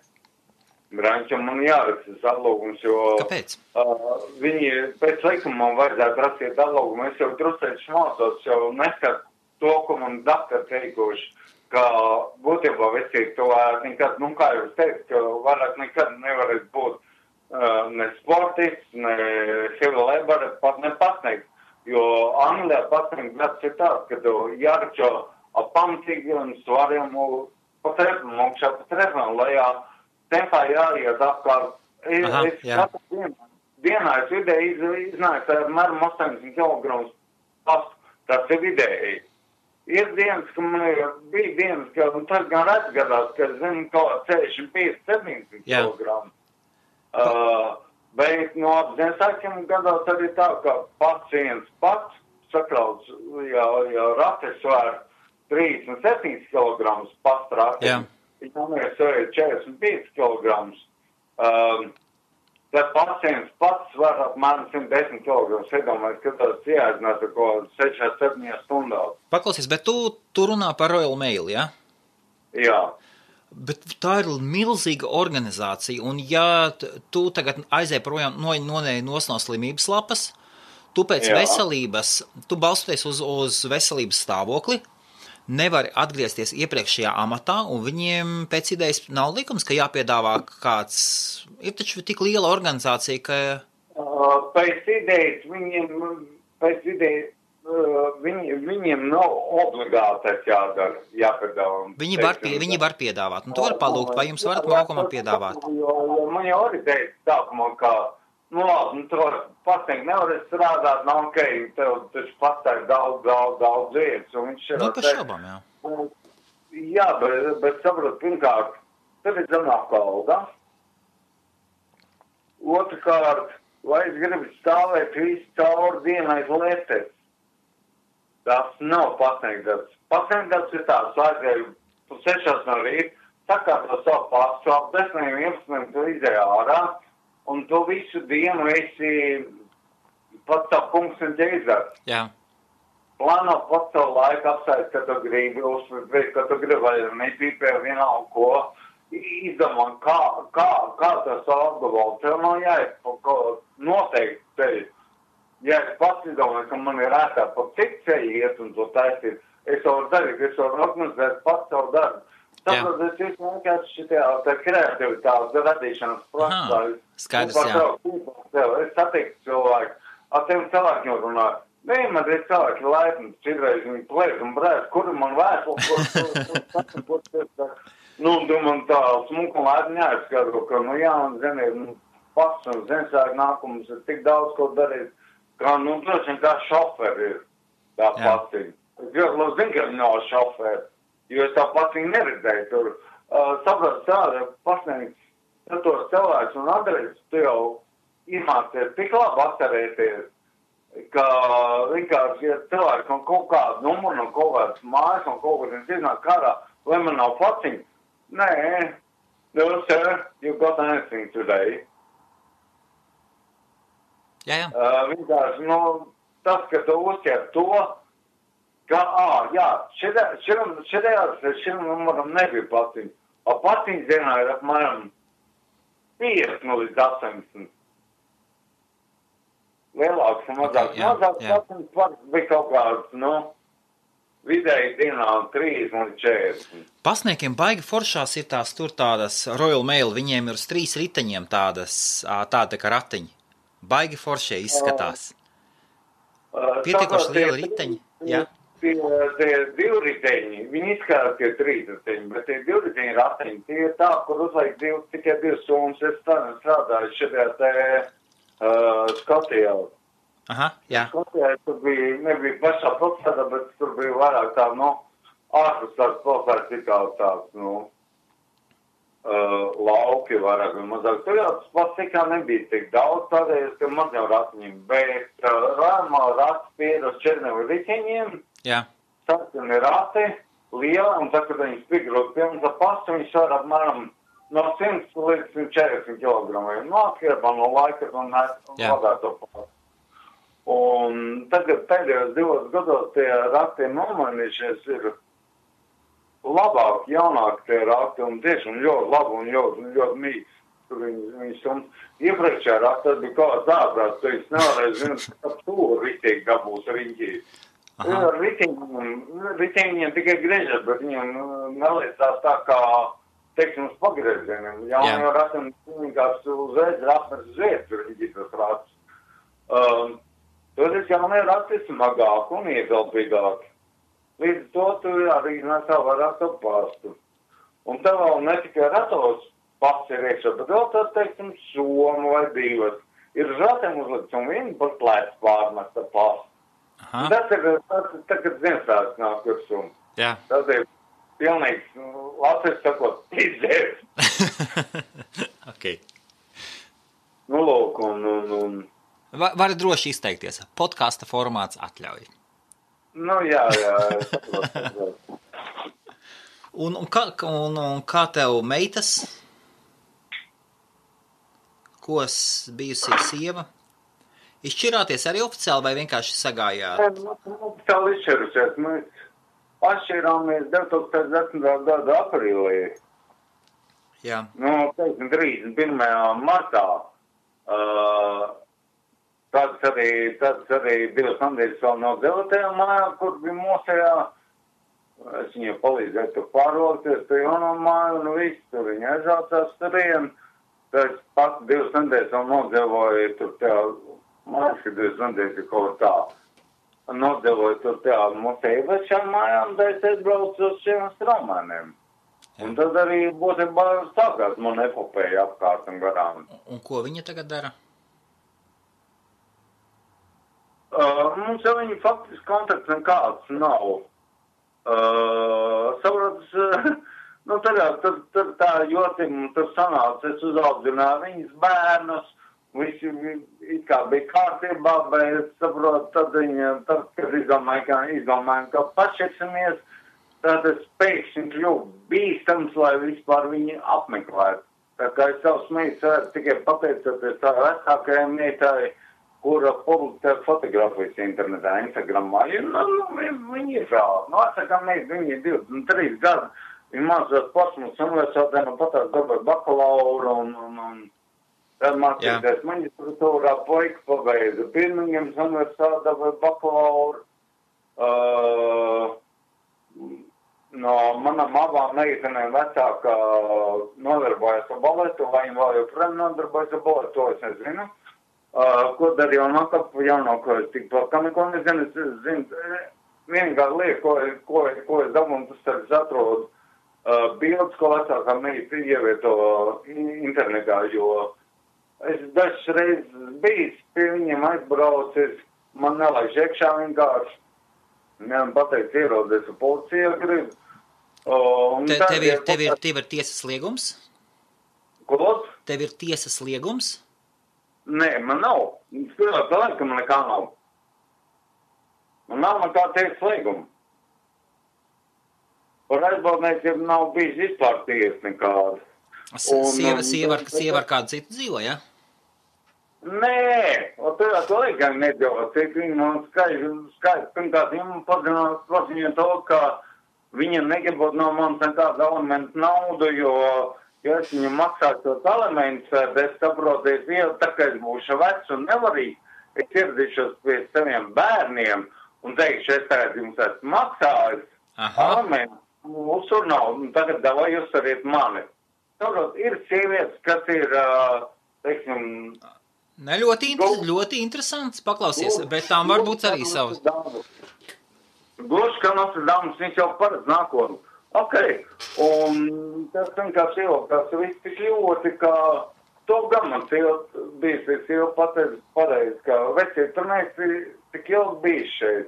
brančam man jārakstīs atlūgums, jo... Kāpēc? Viņi pēc likuma man vajadzētu rakstīt atlūgumu. Es jau drusēši mācos, jau neskatu to, ko man daktar teikuši, ka būtībā visi to nekad, kā jau es teicu, ka vairāk nekad nevarēs būt ne sportists, ne heavy labor, pat ne pasniegt. Jo Anglijā pasniegt gads ir tāds, ka tu jāračo apamtīgiem svariem pa trepam, augšā pa trepam, lejā tempā jāiet apkārt. Es katru dienu dienā es vidēji iznāku apmēram 80 kg pastu. Tas ir vidēji. Ir dienas, ka man bija dienas, ka tas gan redz gadās, ka zinu, kaut 65-70 kg. Bet no Ziemassvētkiem gados arī tā, ka pacients pats sakrauts, ja rates svēr 37 kg pastrākiem, viņam ir 45 kg. Tad pacients pats svēr apmēram 110 kg. Iedomājies, ka tas jāiznās ar ko 6-7 stundās. Paklausies, bet tu runā par Royal Mail, ja? Jā. Bet tā ir milzīga organizācija, un ja tu tagad aizēji projām no slimības lapas, tu pēc veselības, tu balstoties uz veselības stāvokli, nevari atgriezties iepriekšējā amatā, un viņiem pēc idejas nav likums, ka jāpiedāvā kāds, ir taču tik liela organizācija, ka... Pēc idejas viņiem nav obligāti jādara, jāpiedāvā. Viņi var piedāvāt, un tu vari palūgt, vai jums varat laukumā piedāvāt. Jo man jau arī teica sākumā, ka, labi, tu pacienti nevar strādāt, nav ok, tev taču patēr daudz vietas, un viņš ir... Par šaubām, jā. Jā, bet saprot, pirmkārt, tad ir zemāka alga. Otrkārt, vai es gribu stāvēt visu cauri dienai lietēs. Tas nav pacientdarbs. Pacientdarbs ir tāds, aizēju 6 no rīta, sakārto savu pastu, ap 10-11 tu izēj ārā, un tu visu dienu esi pats savu punktu ģeizars. Jā. Plāno pats savu laiku apsēst, ka tu gribi, uzsvērt, ka tu gribi, vai nepīpē vienalga ko, izdomā, kā tas apgabalu. Tev nav jāiet noteikti tevi. Ja es pats izdomāju, ka man ir ētā pa cik ceļu iet un to taisīt, es varu darīt, es varu organizēt pats savu darbu. Tāpēc es vienkārši šitajā kreativitātes radīšanas procesā. Skaidrs, jā. Es satiktu cilvēku, ar tiem cilvēkiem runāju. Man ir cilvēki laipni, citreiz viņi plēs un brēs, kuri man vēstuli, tu man tā smuku laipni jāizskatro, ka, man zini, pats un Ziemassvētku nākums ir tik daudz, ko darīt. Kā, droši vien kā šoferi ir tā paciņa. Es ļoti labi zinu, ka viņi nav šoferi, jo es tā paciņu neredzēju tur. Saprāt, tāda pasniegts, tad tos cilvēks un adreses, tu jau iemācies tik labi atcerēties, ka vienkārši, ja cilvēks un kaut kādu numuru, un kaut kādas mājas, un kaut kādas iznāk kārā, vai man nav paciņa? Nē, no sir, you got anything today. Jā. Vienkārši, tas, ka tu uzķer to, ka, šim numuram nebija paciņa. A paciņas dienā ir apmēram 50 līdz 80. Lielāks un mazāks. Mazāks paciņas bija kaut kāds, vidēji dienā 30 līdz 40. Pasniekiem baigi foršās ir tādas Royal Mail, viņiem ir uz 3 riteņiem tāda kā ratiņi. Baigi foršie izskatās. Pietiekoši liela riteņi, jā? Tie 2 riteņi, viņi izskatās tie 3 riteņi, bet tie 2 riteņi ratiņi, tie ir tā, kur uzlaik tikai 2 stundas. Es strādāju šajā te Skotijā. Aha, jā. Skotijā tur nebija pašā pilsētā, bet tur bija vairāk tā, ārpus tās pilsētas tikā tāds, lauki vairāk un mazāk. Tur jau tas pats tikā nebija tik daudz, tādēļ, ka maz jau ratiņiem, bet rāmā rats pied uz 4 riteņiem, sarkani rati, liela, un tā, kad viņi spigrot pilns ar pastu, viņi svar apmēram no 100 līdz 140 kg. Atkarībā no laika un vadāto pastu. Un tagad pēdējos 2 gados tie rati nomainījušies ir labāk, jaunāk tie rati un tiešām ļoti labi un ļoti mīgs. Tur viņi sums. Iepriekšējā rati tas bija kāds ārprāts, tu viņš nevarēja zināt, ka tur ritīgi dabūs riņķī. Riteņiem tikai griežas, bet viņiem neliecās tā kā, teiksim, uz pagriezieniem. Jaunajā ratam vienkārši uzreiz rapnes uz vietas riņķī tas rats. Toties jaunajā rati smagāk un iegalpīgāk. Līdz to tu arī nesā vairāk to pastu. Un tev vēl ne tikai ratos pats ir iekšā, bet vēl tā, teiksim, somu vai 2. ir žatiem uzlikts un viņi par plēc pārmesta pastu. Tas ir tagad Ziemassvētku nāk virsū. Jā. Tas ir pilnīgs, Latvijas sakot, izdzērs. Ok. Nu, lūk, un... Vari droši izteikties. Podkasta formāts atļauj. Nu, jā. Un kā tev meitas? Ko bijusī sieva? Izšķirāties arī oficiāli vai vienkārši sagājāt? Oficiāli izšķirusies. Mēs atšķirāmies 2010. gada aprīlī. Jā. Nu, 31. martā. Tāds arī 2 nedēļas vēl no dzeltajā mājā, kur bija mosējā. Es viņai palīdzēju tur pārvalkties, tur jauno māju un viss, tur viņa aizraucās turien. Tad pats 2 nedēļas vēl nodzevoju tur tajā, man liekas, 2 nedēļas kaut tā. Nodzevoju tur tajā mosējā vešām mājām, tad es aizbraucu uz šiem straumēniem. Un tad arī būtībā sākās man epopēja apkārt un garām. Un ko viņa tagad dara? Mums jau viņa faktiski kontakts nekāds nav. Saprotas, nu tur tā jotim, tur sanāca, es uzaudzināju viņas bērnus, visi it kā bija kārtībā, bet saprot, tad kad izdomājām, ka pašieksimies, tad es pēkšņi kļuvu bīstams, lai vispār viņu apmeklētu. Tā kā es savus meitas tikai pateicoties tā vecākajai meitai, kura publicē fotografijas internetā, Instagramā. Viņi ir vēl. Nu, atsakām, viņi ir 23 gadi. Viņi mācās Portsmutas universitātē, nu patās dabūja bakalauru un tad mācīties maģistratūrā, puika pabeidza Birmingemas universitātē, dabūja bakalauru. No manām abām meitenēm vecākā nodarbojas ar baletu, vai viņi vēl joprojām nodarbojas ar baletu, to es nezinu. Ko darīju jaunāko, es tik par kā neko nezinu, es zinu, vienīgā lieta, ko es dabūju, tas es atrodu bildes, ko vecākā meita ievieto internetā, jo es dažas reizes bijis pie viņiem aizbraucis, man nelaiž iekšā vienkārši, man pateic ierodies ar policiju grib. Tev ir tiesas liegums? Ko? Tev ir tiesas liegums? Nē, man nav. Spēlēt laikam, ka man nekā nav. Man nav nekā tiesas lieguma. Par aizbaldniekiem nav bijis vispār tiesa nekāda. Sieva ar kādu citu dzīvo, ja? Nē, to laikam nedzīvo. Viņa man skaidrs. Pirmkārt, viņa paziņoja to, ka viņa negribot no manis nekādu elementu naudu, jo es viņu maksātu tos elementus, es saprotu, tā kā es būšu vecs un nevarīgi, es ieradīšos pie saviem bērniem un teikšu, es tagad jums esmu maksājis elementus, uzsur naudu, un tagad davai jūs ariet mani. Saprot, ir sievietes, kas ir, teiksim... Ne, ļoti interesants, paklausies, bet tām varbūt arī savas. Gluži, ka Nostradamus, viņš jau paredz nākotni. Ok, un tas vienkārši ievilkās viss tik ļoti, ka to gan man sieva pateica, ka vecie, tur neesi tik ilgi bijis šeit.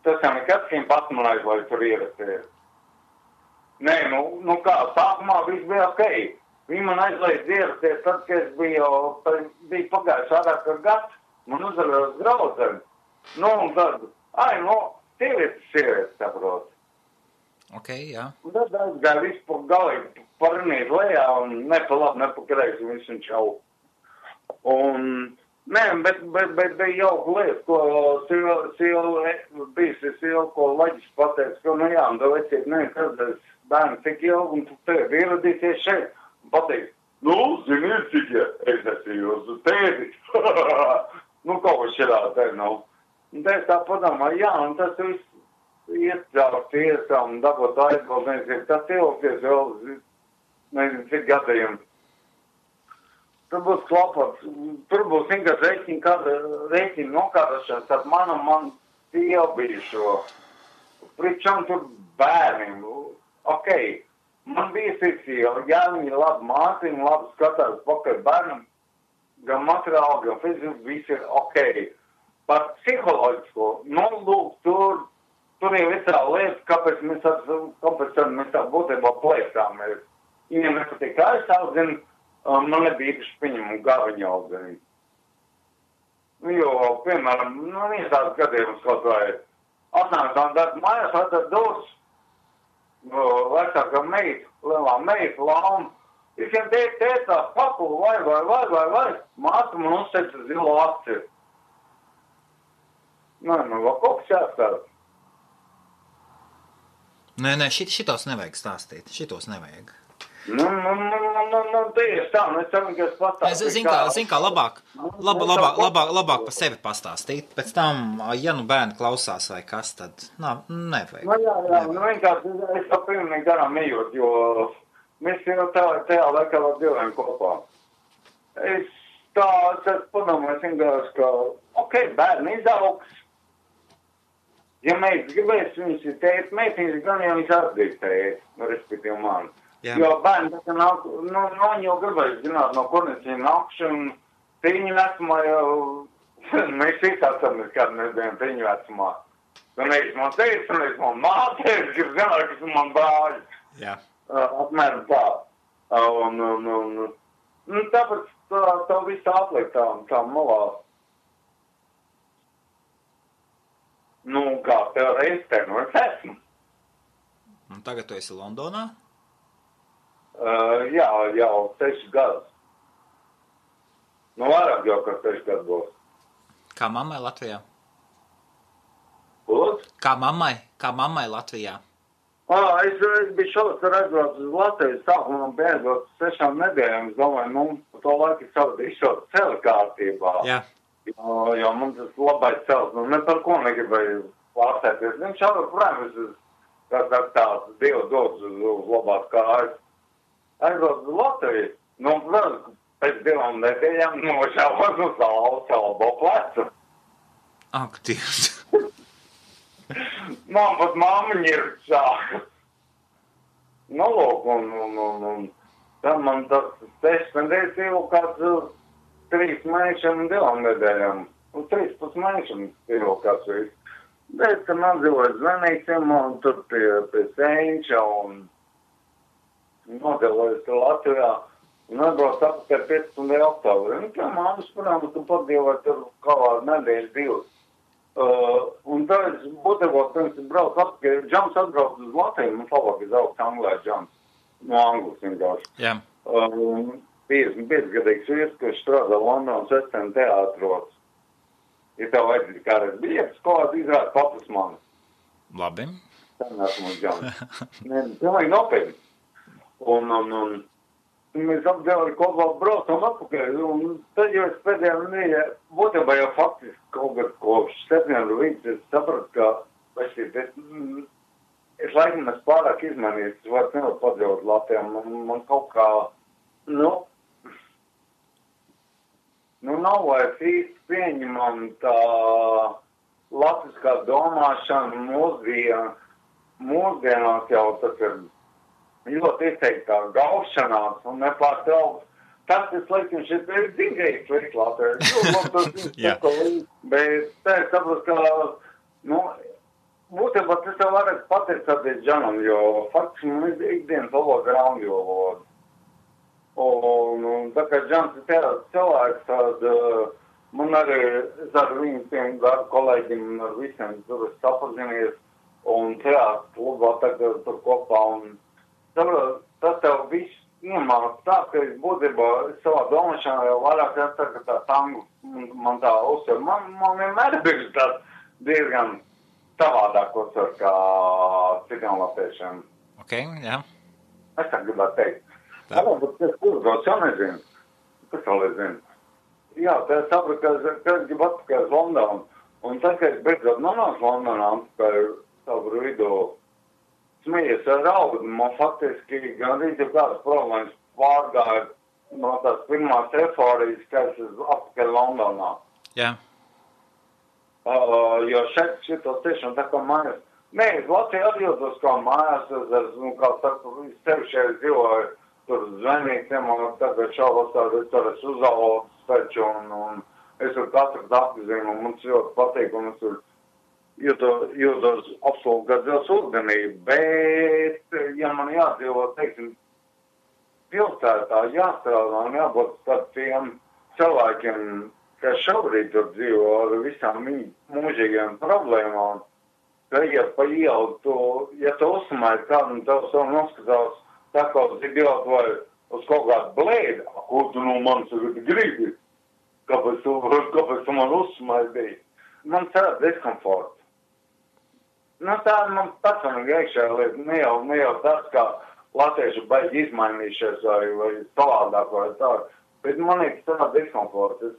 Tas jau nekad viņam pasmanājis, lai tur ierasties. Nē, nu kā, sākumā viss bija ok. Viņi man aizliedz ierasties, tad, kad es biju pagājuši vairāk ar gads, man uzvarējos draudzeni. Nu, un tad, sievietes, saprot. Ok, jā. Un tad aizgāja visu pa galīgi parinīt lejā un ne pa labi, ne pa kreisi, visu un čau. Un, nē, bet bija jauka lieta, ko sieva, ko Laģis pateica, ka, nu jā, un tev veciet, nekādēs bērni tik ilgi, un tu tevi ieradīsies šeit, un pateiks, nu, ziniet, cik es esmu jūsu tēvis. Nu, kaut ko širā te nav. Un te es tā padomāju, jā, un tas viss iet caur tiesām un dabūt aizbaldniecību, tas ilgties vēl, nezinu, cik gadījumi. Tur būs klapats, tur būs vienkārši rēķina nokārtošanas ar man iebijušo. Pričam tur bērniem. Ok, man bija sieva, ja viņi labi mācīja, labi skatās pakaļ bērnam, gan materiāli, gan fiziski, viss ir ok. Par psiholoģisko, lūk, tur ir visā lieta, kāpēc mēs tā būtībā plēsāmies. Ja nepatīk kā es audzinu, man nebija īpaši pieņemumu gāviņu audzinu. Jo, piemēram, viens tāds gadījums kaut vai 18 gadu mājās atver dos, vecākā meita, lielā meita, lauma. Visiem tētā, papu, vai, māca man uzteica zilo akciju. Vēl kaut kas jāstāv. Nē, šitos nevajag stāstīt, šitos nevajag. Tieši tā, es ceru, ka es pastāstīju. Zin kā, labāk par sevi pastāstīt, pēc tam, ja bērni klausās vai kas, tad, nevajag. Vienkārši es tā pilnīgi garām ejot, jo mēs jau tajā laikā vēl dzīvojam kopā. Es padomāju, vienkārši, ka, bērni izaugs. Ja meitas gribēs, viņas ir tēt, meitiņas gan jau viņas atdīs tēt, respektīvi mani. Jā. Jo bērni, tā nāk, viņi jau gribēs zināt, no kurnes viņi nākšu, un tīņu vecumā jau, mēs visi atceramies, kādu mēs bijām tīņu vecumā. Un es man teicu, un es man māteicu, grib zināt, kas man brāļi. Jā. Apmēram tā. Tāpēc tā visu atliek tā malā. Kā tev reizē, es esmu. Un tagad tu esi Londonā? Jā, jau 6 gadus. Vairāk jau, ka 6 gadus būs. Kā mammai Latvijā? Lūdzu? Kā mammai Latvijā? Es biju šodien aizbraucis uz Latviju, sākumā bija aizbraucis 6 nedēļām. Es domāju, pa to laiku izšot ceļa kārtībā. Jā. Jo mums tas labais cels, ne par ko negribēju pārstēties. Viņš jau, protams, tāds Dievu dots uz labās kājas. Aizbrauc uz Latviju, pēc 2 nedēļām nošāvās uz salbo plecu. Ak, Dievs. Man pat māmiņa ir šāka. Lūk, un tad man tas 6 nedēļas jau kāds 3 mēnešiem un 2 nedēļām. 13 mēnešiem jau kāds viss. Bet, kad man dzīvoja zvanīsim, un tur pie Sēņša, un nodelojas Latvijā, un atbrauc apkārt 15. oktobrī. Tā māmas, protams, tu padzīvoja tur kādā nedēļas 2. Un tad es būtībā, pirms es braucu apkārt, Džams atbrauc uz Latviju, man labāk izaugs Anglē Džams, no Anglas vienkārši. Jā. 55-gadīgs vīrs, kurš strādā Londonas Westend teātros. Ja tev vajadzīgi kādreiz biļetes, ko izrāda papas mani. Labi. Tā nesmu uz Džams. Pilnīgi nopietni. Un mēs apdēli kopā braucam atpakaļ, un tad jau es pēdējā nedēļā, būtībā jau faktiski kaut kad kopš septembra līdz es sapratu, ka es laikam es pārāk izmainījis, es vairs nevaru padzīvot Latvijā, man kaut kā, nav vairs īsti pieņemam tā latviskā domāšana mūsdienās jau tas ir ļoti izteiktā gaušanās un nepārtraukt. Tas ir slikti, un šis ir dzīvējis slikti Latvijā. Bet tā es saprotu, ka, būtībā tas jau varētu pateicoties Džanam, jo faktiski man ir ikdienas valoda ir angļu valoda. Un tā kā Džans ir tāds cilvēks, tad man arī, es ar viņiem kolēģiem un ar visiem tur es sapazinies, un teātris klubā tagad tur kopā, un tas tev viss iemāc tā, ka es būtībā savā domāšanā jau vairāk jāsaka tā tangu, man tā uzsver. Man vienmēr ir bijuši tāds diezgan savādāk uzsver kā citiem latviešiem. Ok, jā. Es tā gribētu teikt. Jā, bet kas uzbrauc, jau nezinu. Kas vēl nezinu? Jā, tā es sapratu, ka es gribu atpakaļ uz Londonu. Un tad, kad es beidzot nonācu Londonā atpakaļ savu vidū, smējies ar raudu, man faktiski gandrīz jau kādas problēmas pārgāja no tās pirmās eforijas, ka es atpakaļ Londonā. Jā. Jo šitos tiešām tā kā mājās. Nē, es Latvijā atjūtos kā mājās, kā saka, sevi šeit dzīvoju, tur zvanītiem, un tagad šaubos tur es uzaugs taču, un es ar katru apzinu, un mums ļoti patīk, un es tur jūtos absolūti gadzils ūdenī, bet, ja man jādzīvo, teiksim, pilsētā jāstrādā un jābūt tādiem cilvēkiem, kas šobrīd tur dzīvo ar visām mūžīgiem problēmām, ka, ja pa ielu tu, ja tu uzsmēji kādu un tev savu noskatās tā kā uz idiotu vai uz kaut kādu blēdi, ko tu no manis gribi, kāpēc tu man uzsmēji, man tāda diskomforta. Nu, tā man personīgi iekšējā lieta, ne jau tas, kā latvieši baigi izmainījušies vai savādāk vai tā, bet man ir tāda diskomforta. Es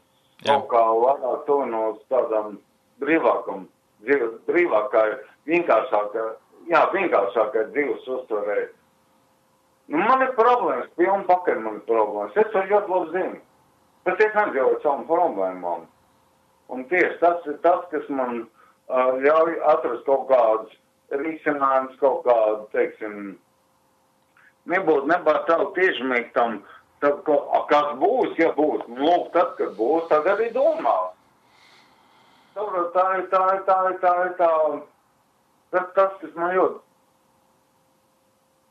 kaut kā vairāk tuvinos tādam brīvākai, vienkāršākai dzīves uztverē. Nu, man ir problēmas, pilni pakaļ man ir problēmas. Es to ļoti labi zinu, bet es nedzīvoju savām problēmām. Un tieši tas ir tas, kas man ļauj atrast kaut kādus risinājumus, kaut kādu, teiksim, nebūtu tādu tiešmīgi tam, tad, kas būs, ja būs. Lūk, tad, kad būs, tad arī domā. Tā ir tas, kas man ļoti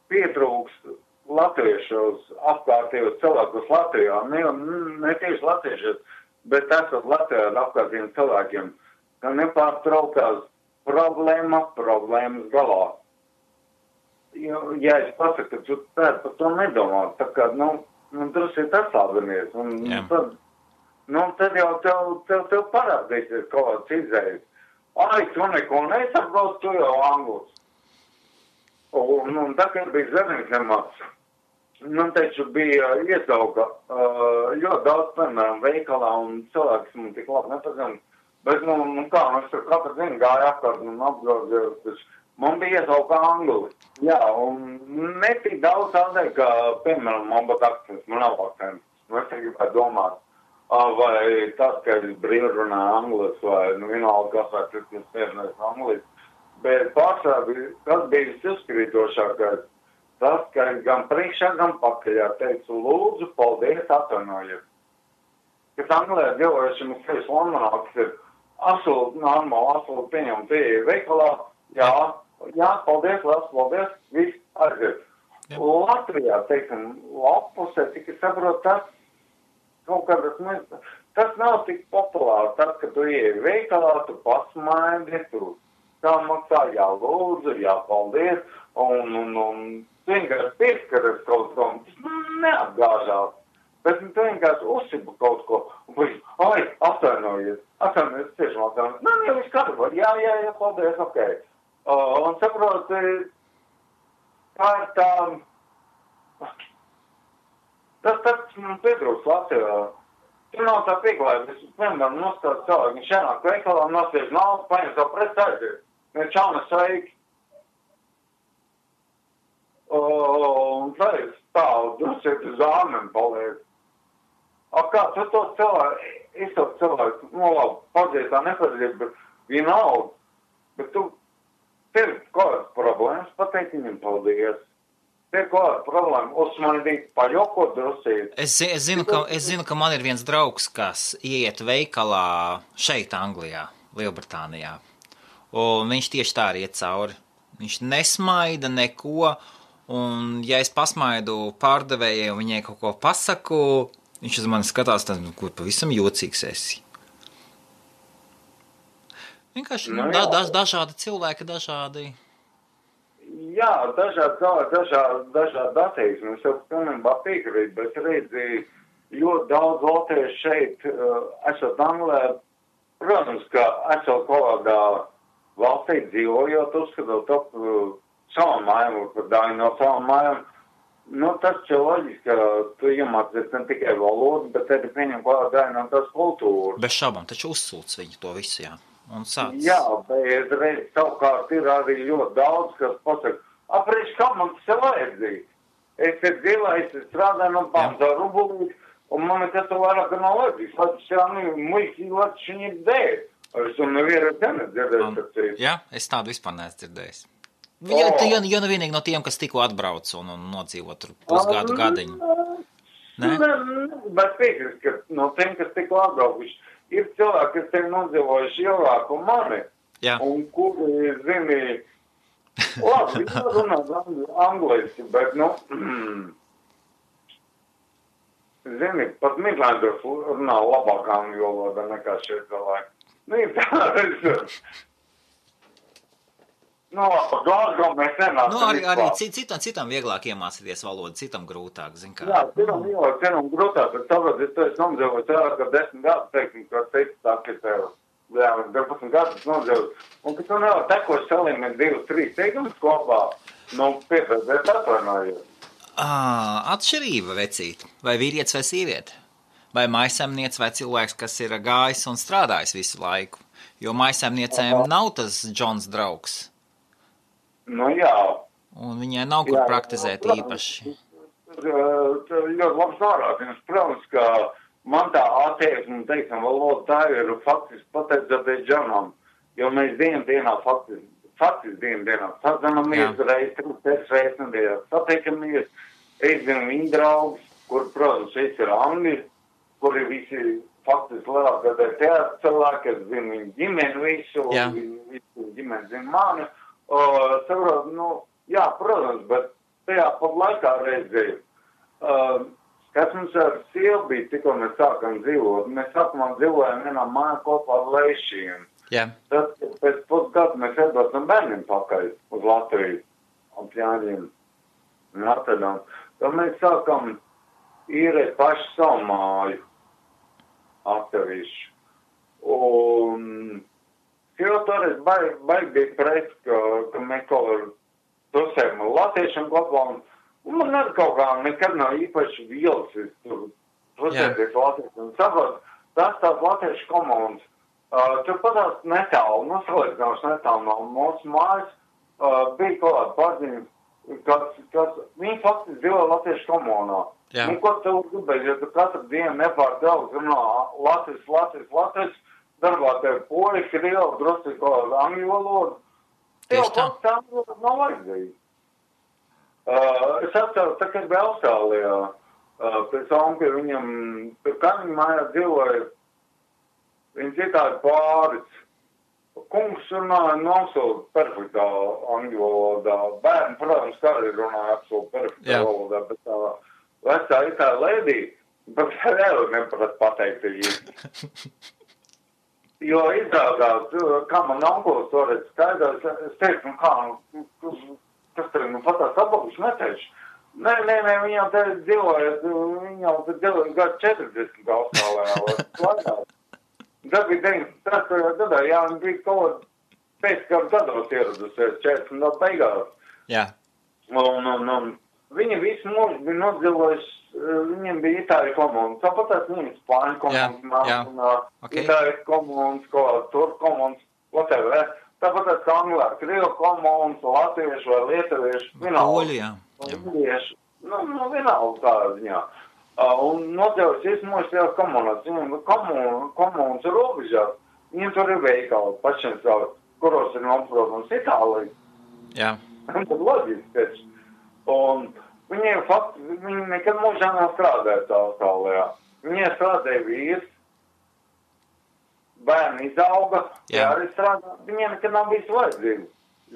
pietrūkst latviešos, apkārtējos cilvēkus Latvijā. Ne tieši latviešos, bet esot Latvijā ar apkārtējiem cilvēkiem, ka nepārtraukās problēmas galā. Ja es pasaku, ka tu par to nedomā, tā kā, drusku ir atlābinies, un tad jau tev parādīsies kaut kāds izējas. Ai, tu neko nesaprotu, tu jau anglis. Un tā, kad bija Zemiņzemā, taču bija iesauka ļoti daudz, piemēram, veikalā, un cilvēks man tik labi nepazina. Bet, es tur katru dienu gāju apkārt un apgrozījos, man bija iesauka angli. Jā, un netik daudz tādēļ, ka, piemēram, man būtu akcents, man nav akcents. Es gribētu domāt, vai tas, ka es brīvi runāju anglis, vai vienalga kas vai cits spērinājis anglis. Bet pārsvarā, kas bija visuzskrītošākais, tas, ka es gan priekšā, gan pakaļā teicu, lūdzu, paldies, atvainojiet. Kas Anglijā dzīvojušiem ir sevis Londonā, kas ir absolūti normāli, absolūti pieņem pieeja veikalā, jā, paldies, paldies, viss aiziet. Latvijā, teiksim, lapusē, tik es saprotu, tas kaut kādas, tas nav tik populāri, tas, ka tu ieeji veikalā, tu pasmaidi, tu tā maksā, jā, lūdzu, jā, paldies, un vienkārši pieskaries kaut ko, tas neapgāžās. Bet tu vienkārši uzsibu kaut ko, un ai, atvainojies, tiešām atvainojies. Jau viss kārtībā, jā, paldies, ok. Un saprot, tā ir tā, tas man pietrūks Latvijā. Tu nav tā pieklājība, es vienmēr nostādu cilvēku, viņš ienāk veikalā, nostiež naudu, paņem savu preci aiziet. Viņš čauna sveiki. Un tā ir stāv, drusiet uz āmeni paliek. Kā tu to cilvēku, labi, padziet tā nepadziet, bet vienalga. Bet tev ir kādas problēmas, pateikt viņam paldies. Tev ir kāda problēma, uzsmanīt, paļokot drusīt. Es zinu, ka man ir viens draugs, kas ieiet veikalā šeit Anglijā, Lielbritānijā. Un viņš tieši tā arī iet cauri. Viņš nesmaida neko, un ja es pasmaidu pārdevējai un viņai kaut ko pasaku, viņš uz mani skatās, tad, kur pavisam jocīgs esi. Vienkārši dažādi cilvēki, dažādi. Jā, dažādi attieksmi. Es jau pilnībā piekrītu, bet redzi, ļoti daudz latviešu šeit, esot Anglijā, protams, ka esot kādā valstī dzīvojot, uzskatot ap savam mājām, par daļu no savam mājām. Tas ir loģiski, ka tu iemācies ne tikai valodu, bet arī pieņem kādā daļu no tās kultūras. Bez šaubām, taču uzsūc viņu to visu, jā. Un sāc. Jā, bet reiz savukārt ir arī ļoti daudz, kas pasaka, aprīš, kā man tas ir vajadzīgi. Es ir dzīvējis, es strādāju no pamata rubulīt, un man nekas to vairāk nav vajadzīgs. Lai tas muļķi, lai viņi ir dēļ. Es to nevienu dzirdēju. Jā, es tādu vispār neesmu dzirdējis. Ja nu vienīgi no tiem, kas tikko atbrauc un nodzīvo tur pusgadu gadiņu. Bet piekrist, ka no tiem, kas tikko atbraukuši, ir cilvēki, kas te nodzīvojuši ilgāk un mani, un kuri, zini, labi, viņi runā angliski, bet, zini, pat Midlanders runā labāk angļu valodā nekā šie cilvēki. Glasgow mēs nenākam. Arī citam vieglāk iemācīties valodu, citam grūtāk, zin kā. Jā, citam grūtāk, bet tāpēc es to esmu nomdzīvojis vairāk kā 10 gadus, teiksim, ka teicu tā, ka tev, 12 gadus nomdzīvojis. Un, ka tu nevar tekoši salīmēt 2-3 teikumus kopā, piepēdēt atvainājot. Atšķirība, vecīt, vai vīrietis vai sieviete, vai maisaimniece vai cilvēks, kas ir gājis un strādājis visu laiku, jo maisaimniecēm nav tas Džons draugs. Jā. Un viņai nav kur praktizēt īpaši. Ļoti labs norādījums. Protams, ka man tā attieksme, teiksim, valoda tā ir faktiski pateicoties Džonam, jo mēs dienā faktiski dienā sazinamies reiz, 3 reizes nedēļā satiekamies. Es zinu viņu draugus, kur, protams, šeit ir angļi, kuri visi faktiski lielākā teātra cilvēki, es zinu viņu ģimeni visu, viņu ģimeni zinu mani. Saprot, protams, bet tajā pat laikā reizē, kas mums ar sievu bija, tikko mēs sākam dzīvot, mēs sākumā dzīvojam vienā mājā kopā ar Leišiem. Tad pēc pusgadu mēs atbraucam bērniem pakaļ uz Latviju, ap Jāņiem un Rotterdam. Tad mēs sākam īrēt paši savu māju atsevišķi. Un jo toreiz baigi bija pret, ka mēs kaut var dosējam latviešiem kopā, un man arī kaut kā nekad nav īpaši vielsis tur dosēties latviešiem. Saprat, tās latviešu komandas, tur patās netālu, salīdzināšu netālu no mūsu mājas, bija kaut kāda paziņa, kas viņi faktiski dzīvo latviešu komunā. Un ko tev gribēs, ja tu katru dienu nepārtraukti runā Latvijas, darbā tev poļi, krievi, drusku kaut angļu valodu. Tev kaut tā nav vajadzīgi. Es atceru, tā kā bija Austrālijā, pēc onka viņam, tur kaimiņu mājā dzīvoja, viņš ir tādi pāris. Kungs runāja absolūti perfektā angļu valodā. Bērni, protams, kā arī runāja absolūti perfektā valodā, bet tā vecā ir tā lēdī, bet vēl neprat pateikt īsti. Jo izrādās, kā man onkulis toreiz skaidrs, es teicu, kas tev, patās apakaļ neteicu. Nē, viņam te dzīvoja gadu 40 Austrālijā, vai tad bija 93. gadā, viņi bija kaut pēc kādu gados ieradusies 40 no beigās. Un viņi visu mūžu bija nodzīvojuši, viņiem bija itāļu komunas, tāpatās viņiem spāņu komunas, itāļu komunas, turku komunas, whatever. Tāpatās anglā, krievu komunas, latviešu vai lietuviešu, vienalga. Vienalga tādā ziņā. Un nodzīvojas visu mūžu tajās komunās. Viņiem komunas ir robežās, viņiem tur ir veikali pašiem savu, kuros ir noprotams Itālija. Un tad loģiski taču. Un viņi nekad mūžā nav strādājuši Austrālijā. Viņiem strādāja vīrs, bērni izauga, arī strādā. Viņiem nekad nav bijis vajadzīgi.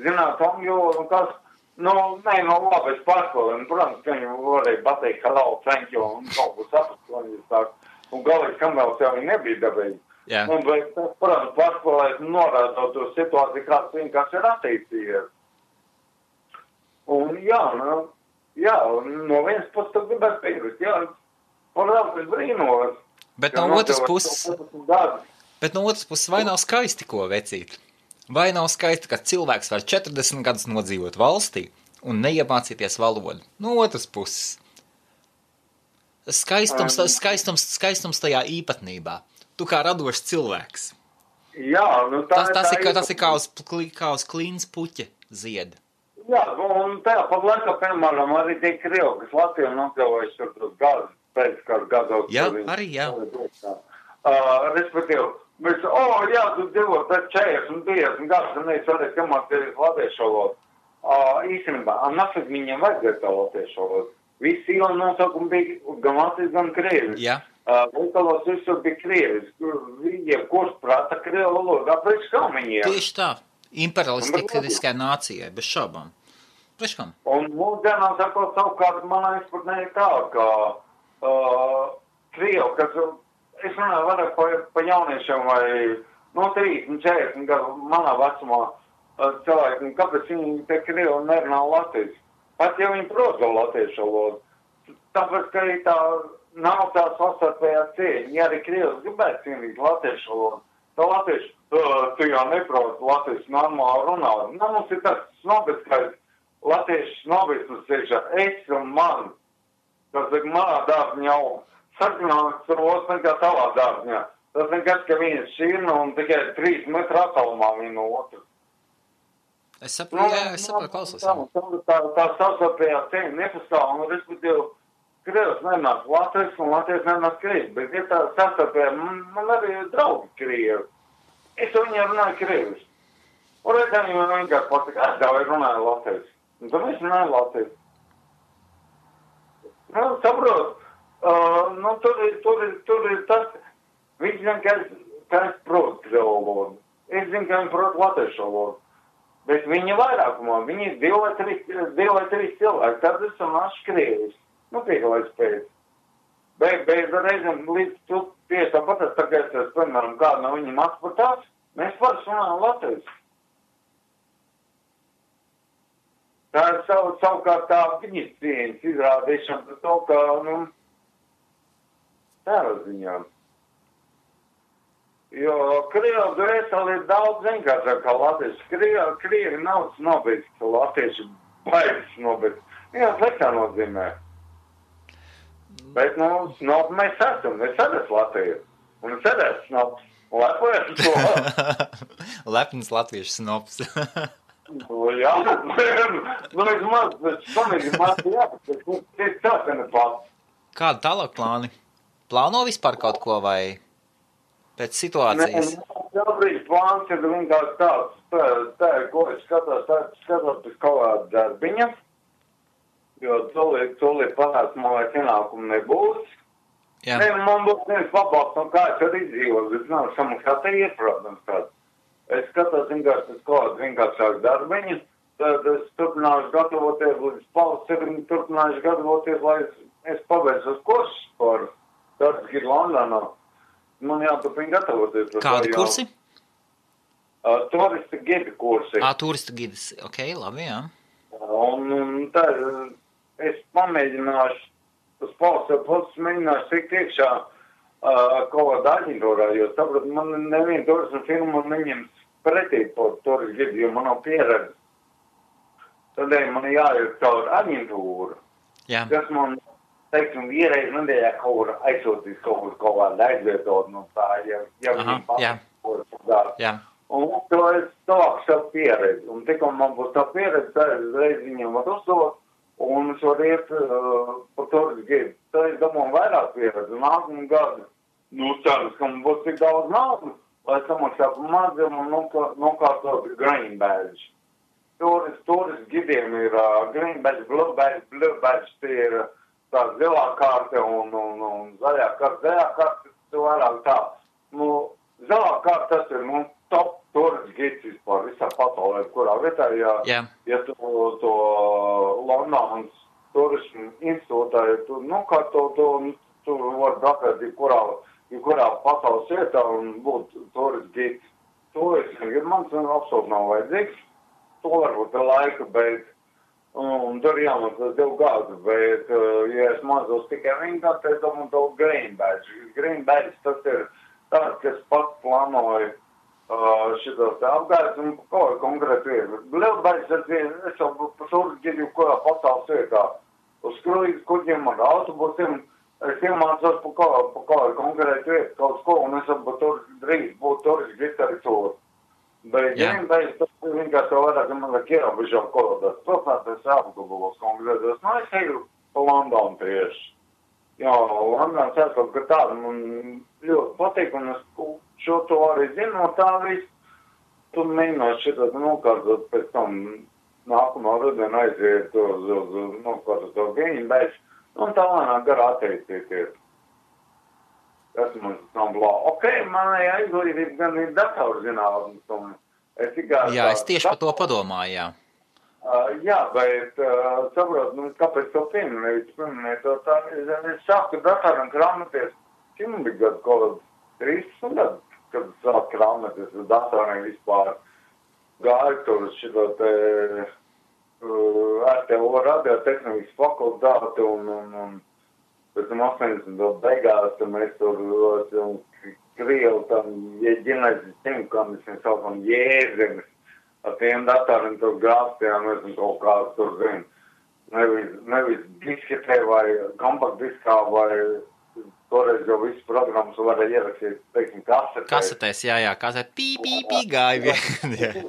Zināt, un kas, labi, es pārskolēju. Protams, ka viņi varēja pateikt hello, thank you, un kaut ko saprast, ko viņi sāk. Un galīgi, kamēr jau viņi nebija dabīgi. Un, bet, protams, pārskolēs norādot to situāciju, kāds vienkārši ir attīstījies. Un no vienas puses tu gribētu piekrist, protams, es brīnos. Bet no otras puses, vai nav skaisti, ko vecīt? Vai nav skaisti, ka cilvēks var 40 gadus nodzīvot valstī un neiemācīties valodu? No otras puses. Skaistums tajā īpatnībā. Tu kā radošs cilvēks. Tas ir kā uz klīnas puķa zieda. Un tajā pat laikā, piemēram, arī tie krievi, kas Latvijā nokļuvojuši tur tos gadus, pēc kādu gados. Respektīvi, mēs, tu dzīvo pēc 40 un 50 gadus, un es varēju kamāties latviešu valodu. Īstenībā, nafik viņiem vajadzētu tā latviešu valodu. Visi iela nosaukumi bija gan Latvijas, gan Krievis. Jā. Veikalos visur bija Krievis. Kurš prāta Krievu valodu, kāpēc kā viņiem? Tieši tā. Imperialistiskai nācijai, bez šaubām. Priekškam? Un mūsdienā sakot savukārt, manā izpratnē ir tā, ka Krievu, kas, es runāju vairāk pa jauniešiem vai, 30, 40 gadu manā vecumā cilvēki, kāpēc viņi te Krievu nerunā latviešu? Pat ja viņi prot latviešu valodu. Tāpēc, ka tā nav tā sastarpējā cieņa. Ja arī Krievs gribētu cienīt latviešu valodu, tā latviešu, tu jau neprot latviešu normāli runāt. Mums ir tas snobiskais latviešu snobisms iekšā. Es un man, tas ir manā dārziņā sarkanāks ros nekā tavā dārziņā. Tas nekas, ka viens šķirna un tikai 3 metru attālumā viena no otras. Es saprotu, klausos. Tā sastarpējā cieņa nepastāv, un respektīvi, Krievs nenāk Latvijas un Latvijas nenāk Krievi, bet ja tā sastarpējā, man arī ir draugi Krievi. Es viņiem runāju Krievis. Un redzēju, viņam vienkārši patika, es tev runāju Latvijas. Un tad es runāju Latvijas. Saprot, tur ir tas, viņš zina, ka es protu Krievu valodu. Es zinu, ka viņi prot latviešu valodu. Bet viņi vairākumā, viņi ir 2 vai 3 cilvēki, tad es runāšu Krievis. Tik lai spēc. Bet reizēm līdz tu tieši tāpat, tagad es, piemēram, kādu no viņiem atspatās, mēs vairs runājam latviešu. Tā ir savukārt tā viņas cieņas izrādīšana par to, ka, tādā ziņā. Jo Krievu dvēseli ir daudz vienkāršāk kā latvieši. Krievi nav snobiski, latvieši baigi snobiski. Jā, sliktā nozīmē. Bet, snobi mēs esam. Es esmu Latviju. Un es esmu snobs. Lepojas to. Lepns latviešu snobs. Jā, vismaz, bet samīgi maz jāpēc. Tas ir tā, ka ne pats. Kādi tālāk plāni? Plāno vispār kaut ko vai pēc situācijas? Šobrīd plāns ir vienkārši tāds. Tā ir, ko es skatos pēc kaut kāda darbiņa. Jo tūlīt panāks, man vairs ienākumu nebūs. Jā. Man būs viens pabalsts, no kā es arī izdzīvos, bet nav samaksāt iet, protams, tāds. Es skatos vienkārši pēc kaut kādu vienkāršāku darbiņu, tad es turpināšu gatavoties, līdz pavasarim turpināšu gatavoties, lai es pabeidzu uz kursus par Darbiņu Londonā. Man jāturpina gatavoties. Kādi kursi? Turista gidi kursi. Turista gidis, ok, labi, jā. Un tā, es pamēģināšu, uz pals mēģināšu tikt iekšā kaut kādā aģentūrā, jo sapratu, man neviena turisma firma neņems pretī par turistu gidi, jo man nav pieredze. Tādēļ man jāiet caur aģentūru. Jā. Kas man, teiksim, vienreiz nedēļā kaut aizsūtīs kaut kādā aizvietot no tā, ja viņiem jā. Jā. Un to es sāku savu pieredzi. Un tikko man būs tā pieredze, tad es reiz viņiem var uzdot, un es varu iet par turistu gidu. Tad es domāju vairāk pieredzi. Nākamā gada, ceras, ka man būs tik daudz naudu, lai samaksātu maziem un nokārtot green badge. Turistu gidiem ir green badge, blue badge, tie ir tā zilā karte un zaļā karte. Zaļā karte ir vairāk tā. Zilā karte tas ir, top turistu gids vispār visā pasaulē, kurā vietā, ja tu to Londonas turismu institūtā, tu vari braukt jebkurā pasaules vietā un būt turistu gids. To es negribu, man absolūti nav vajadzīgs. To varbūt ir laika, bet tur jāmaksās 2 gadu, bet, ja es mazos tikai 1 gadu, tad es domāju to green badge. Green badge tas ir tāds, kas pats plānoja šitos te apgājus un kaut kā konkrēti vietu. Lielbaļas es jau par turistu gidu kurā pasaules vietā. Uz kruīzu kuģiem ar autobusiem es iemācos par kaut kā konkrēti vietu, kaut ko, un es drīz būtu turistu gids arī tur. Bet vienbaļas tas ir vienkārši jau vairāk, ja man vajag ierobežot kolodās. Protams, es apgabalos konkrētos. Es eju pa Londonu tieši. Jā, Londons kaut kā tāda man ļoti patīk, un es šo to arī zinu, no tā viss. Tu mēģināšu šitāt nokārtot pēc tam nākamā rudenā aiziet uz nokārtot to green badge. Un tā lēnāk garā attīstīties. Tas mums nav blā. Ok, manējā izglītība gan ir datorzinātnes, un es tikai... Jā, es tieši par to padomāju, jā. Jā, bet saprot, kāpēc to pieminēju to tā, es sāku datoram krāmēties, cik man bija gadu kaut 30 gadu, kad sāku krāmēties ar datoriem vispār. Gāju tur šito te RTO radiotehnikas fakultāti un pēc tam 80. beigās, tad mēs tur Krievu tam ģenēzes ķemkam, mēs saukam jēzenes. Ar tiem datoriem tur grāstījām, mēs kaut kāds tur zinu. Nevis disketē vai kompaktdiskā vai toreiz jau visu programmas varēja ierakstīt, teiksim, kasetēs. Kasetēs, jā, kasetē pī gāja vien.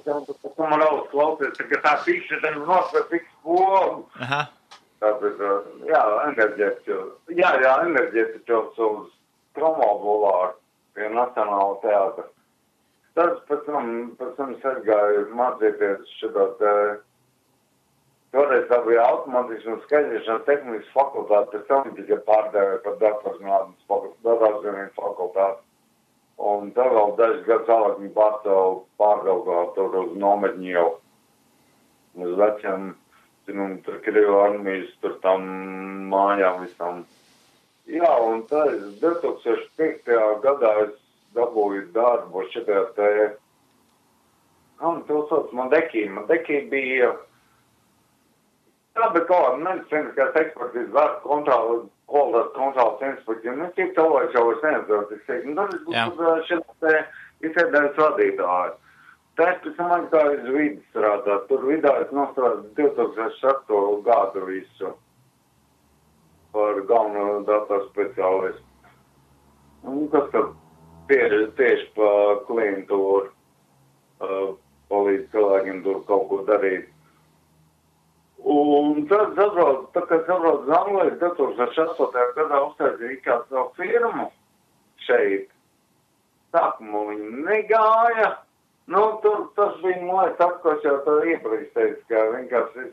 Tas man daudz klausies, ka tā pikša ten nosver piks pogu. Aha. Tāpēc, enerģētiķos uz promobulāru pie Nacionāla teātra. Tad pēc tam es aizgāju mācīties šitā te, toreiz tā bija automātiski un skaidrīšanas tehnikas fakultāte, pēc tam tikai pārdēvēja par datorzinātnes fakultāti. Un tad vēl dažas gadus vēlāk viņi pārgalvā tur uz nometņu jau, uz veciem, tur Krievu armijas, tur tam mājām visam. Jā, un tad 2005. gadā es dabūju darbu šitajā te, to sauc Madekī. Madekī bija, tā bija kaut kāda medicīniskās ekspertīzes vērts kvalitātes kontrolas inspekcija. Cik cilvēks jau vairs neatzīst, es teiktu, tad es būtu šitā te izsēdējis vadītāju. Tas pēc tam aizgāju uz vidi strādāt. Tur vidā es nostrādāju 2006. gadu visu par galveno datoru speciālistu. Un kas tad tieši pa klientūru palīdz cilvēkiem tur kaut ko darīt. Un tad kad sabrauc uz Angliju 2008. gadā uztaisīja kādu savu firmu šeit. Sākumā viņi negāja. Tas bija mājas ko es jau tā iepriekš teicu, ka vienkārši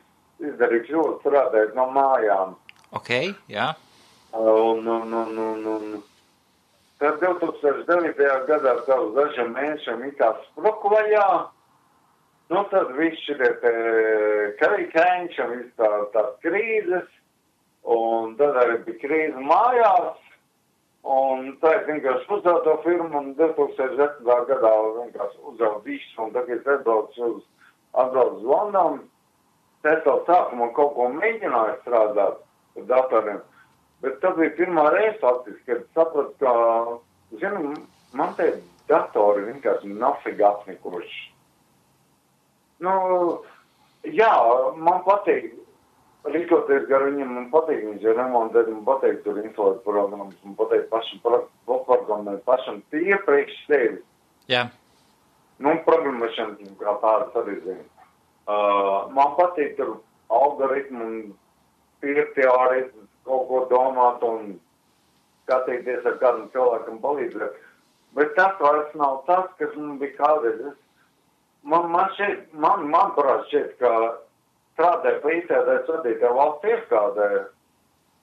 izdarīju kļūdu strādāt no mājām. Ok, jā. Un tad 2009. gadā uz dažiem mēnešiem it kā spruku vaļā. Tad viss šitie karikēņš un viss tās krīzes. Un tad arī bija krīze mājās. Un tā es vienkārši uzdevu to firmu un 2010. gadā vienkārši uzdevu visu. Un tagad es atbraucu uz Londonu. Es vēl sākumā kaut ko mēģināju strādāt ar datoriem. Bet tas bija pirmā reize faktiski, kad sapratu, ka, man te datori vienkārši nafīgi apnikuši. Jā, man patīk. Rīkoties gar viņiem, man patīk viņš ir remontēt, man patīk tur inflēt programmas, man patīk pašam programmēt, pašam tie priekš sevi. Jā. Programmēšana kā tādas arī zinu. Man patīk tur algoritmu un teorijas, kaut ko domāt un skatīties ar kādam cilvēkam palīdzēt. Bet tas vairs nav tas, kas man bija kādreiz. Man parāds šķiet, ka strādāja pa izsēdēs vadītāju valsts ieskādē.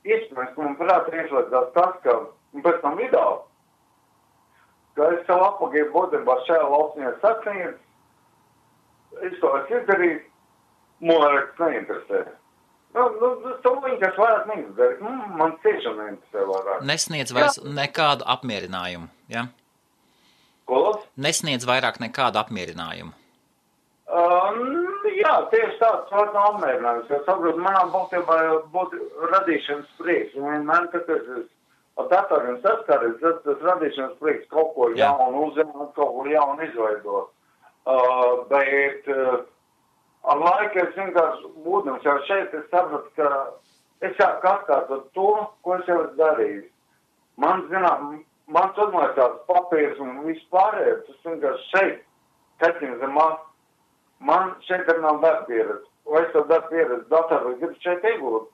Iespējams, ka man prāt iešlēdzās tas, ka, un pēc tam video, ka es savu apagīju būtībā šajā valstņā sasniedz, es to esmu izdarījis, man vairs neinteresē. To viņi, kas vairāk neinteresē, man tiešām neinteresē vairāk. Nesniedz vairs nekādu apmierinājumu, ja? Ko? Nesniedz vairāk nekādu apmierinājumu. Jā, tieši tāds vairs nav apmierinājums, jo saprotu, manām būtībā būtu radīšanas prieks. Vienmēr, kad es ar datoriem saskaries, tas radīšanas prieks kaut ko jaunu uzzināt, kaut ko jaunu izveidot. Bet ar laiku es vienkārši būdams jau šeit, es sapratu, ka es sāku atkārtot to, ko es jau esmu darījis. Man uzmaisās papīrs un viss pārējais, tas vienkārši šeit, kaķiņa zemā. Man šeit arī nav darba pieredze. Vai es to darba pieredzi datoru gribu šeit iegūt?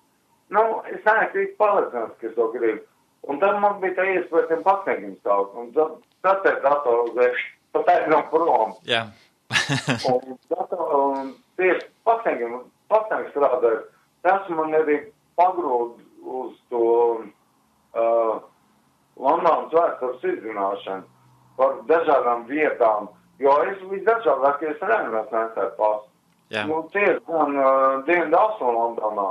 Es neesmu pārliecināts, ka es to gribu. Un tad man bija tā iespēja tiem pasniegiem stāvot. Un tad te datoru uzēšu, pat aizņem prom. Jā. un tieši pasniegiem strādāju. Tas man arī pagrūd uz vēstures izzināšanu par dažādām vietām, jo es visdažādākie rēmēs nesēju pasu. Nu, tieši gan Dienvidu Austrumlondonā.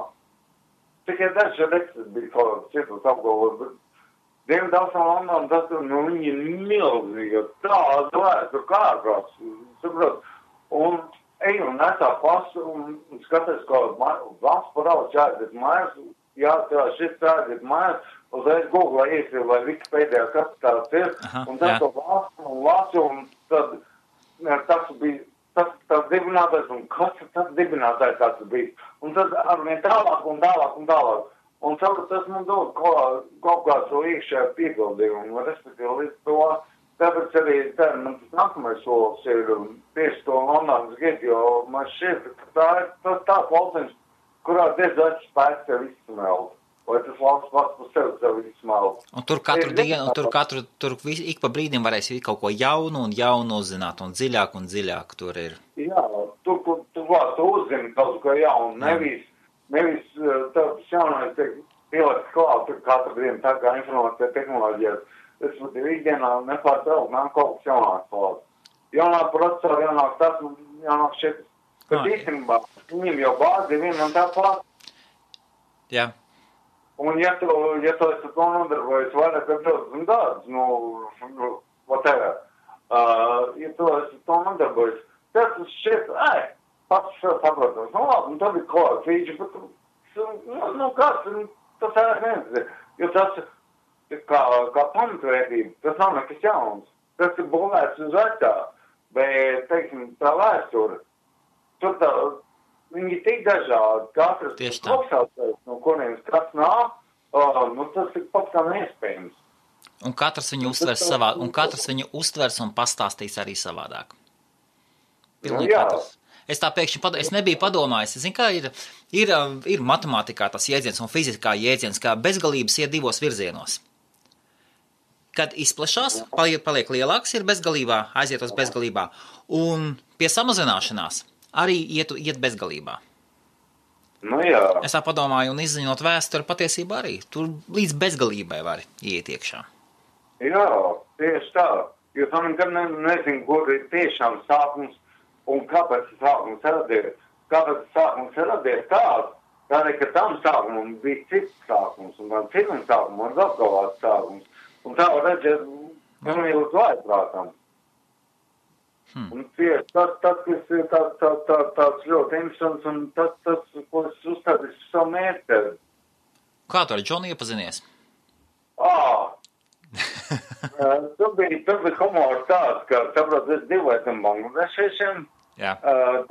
Tikai daži reizes bija kaut kāds citus apgalvot, bet Dienvidu Austrumlondonā tas, viņi ir milzīgi, tāda vēstura kārtās, saprot, un eju un nesā pasu un skaties, kā valsts parauds jāaiziet mājās, šis jāaiziet mājās, uzreiz Google iesīja, vai Wikipēdijā kas tāds ir, un tas to valsts un lasu, un tad tas bija tas dibinātājs, un kas tas dibinātājs tāds bija. Un tad arvien tālāk un tālāk un tālāk. Un tas man dod kaut kā to iekšējā piepildījumu, un respektīvi līdz to, tāpēc arī man tas nākamais solis ir tieši to Londonas Gate, jo man šķiet, ka tā ir tā valsts, kurā diezgan spēks sev izsmelt. Vai tas valsts pats par sevi izsmelt. Un tur katru dienu, tur ik pa brīdim varēs kaut ko jaunu un jaunu uzzināt, un dziļāk tur ir. Jā, tur tu uzzini kaut ko jaunu, nevis tāds jaunais tiek pielikt klāt, tur katru dienu tā kā informācija tehnoloģijas. Es ikdienā nepārtraukt, nāk kaut kas jaunāks klāt. Jaunāk procesori, jaunāk tas, jaunāk šeit. Bet īstenībā, viņiem jau bāzi viena un tā klāt. Jā. Un ja tu esi to nodarbojies vairāk ar 20 gadus, whatever, ja tu esi to nodarbojies, tas šķiet, pats saprotams, labi, un tad ir kaut fīģi, bet, kas, tas nezinu, jo tas kā pamatvērtība, tas nav nekas jauns, tas ir būvēts uz vecā, bet, teiksim, tā vēsture, tur tā, viņi ir tik dažādi, katrs kopsaucējs, no kuriem kas nāk, tas ir pats kā neiespējams. Un katrs viņu uztvers savā, un katrs viņu uztvers un pastāstīs arī savādāk. Pilnīgi katrs. Es tā pēkšņi es nebiju padomājis. Zinu, kā ir matemātikā tas jēdziens un fizikā jēdziens, kā bezgalības iet divos virzienos. Kad izplešās, paliek lielāks, ir bezgalībā, aiziet uz bezgalībā, un pie samazināšanās arī iet bezgalībā. Nu jā. Es tā padomāju, un izziņot vēsturi patiesībā arī. Tur līdz bezgalībai var iet iekšā. Jā, tieši tā. Jo tu nekad nezinu, kur ir tiešām sākums un kāpēc sākums radies. Kāpēc sākums radies tāds, tādēļ, ka tam sākumam bija cits sākums, un tam citam sākumam var apgalvāt sākums. Un tā var redzēt, pilnīgi uz vājprātam. Un tieši tas, kas ir tāds ļoti interesants, un tas, ko es uzstādīju savu mērķi. Kā tu ar Džonu iepazinies? Tur bija humors tāds, ka, saprot, es dzīvoju tam bangladešiem. Jā.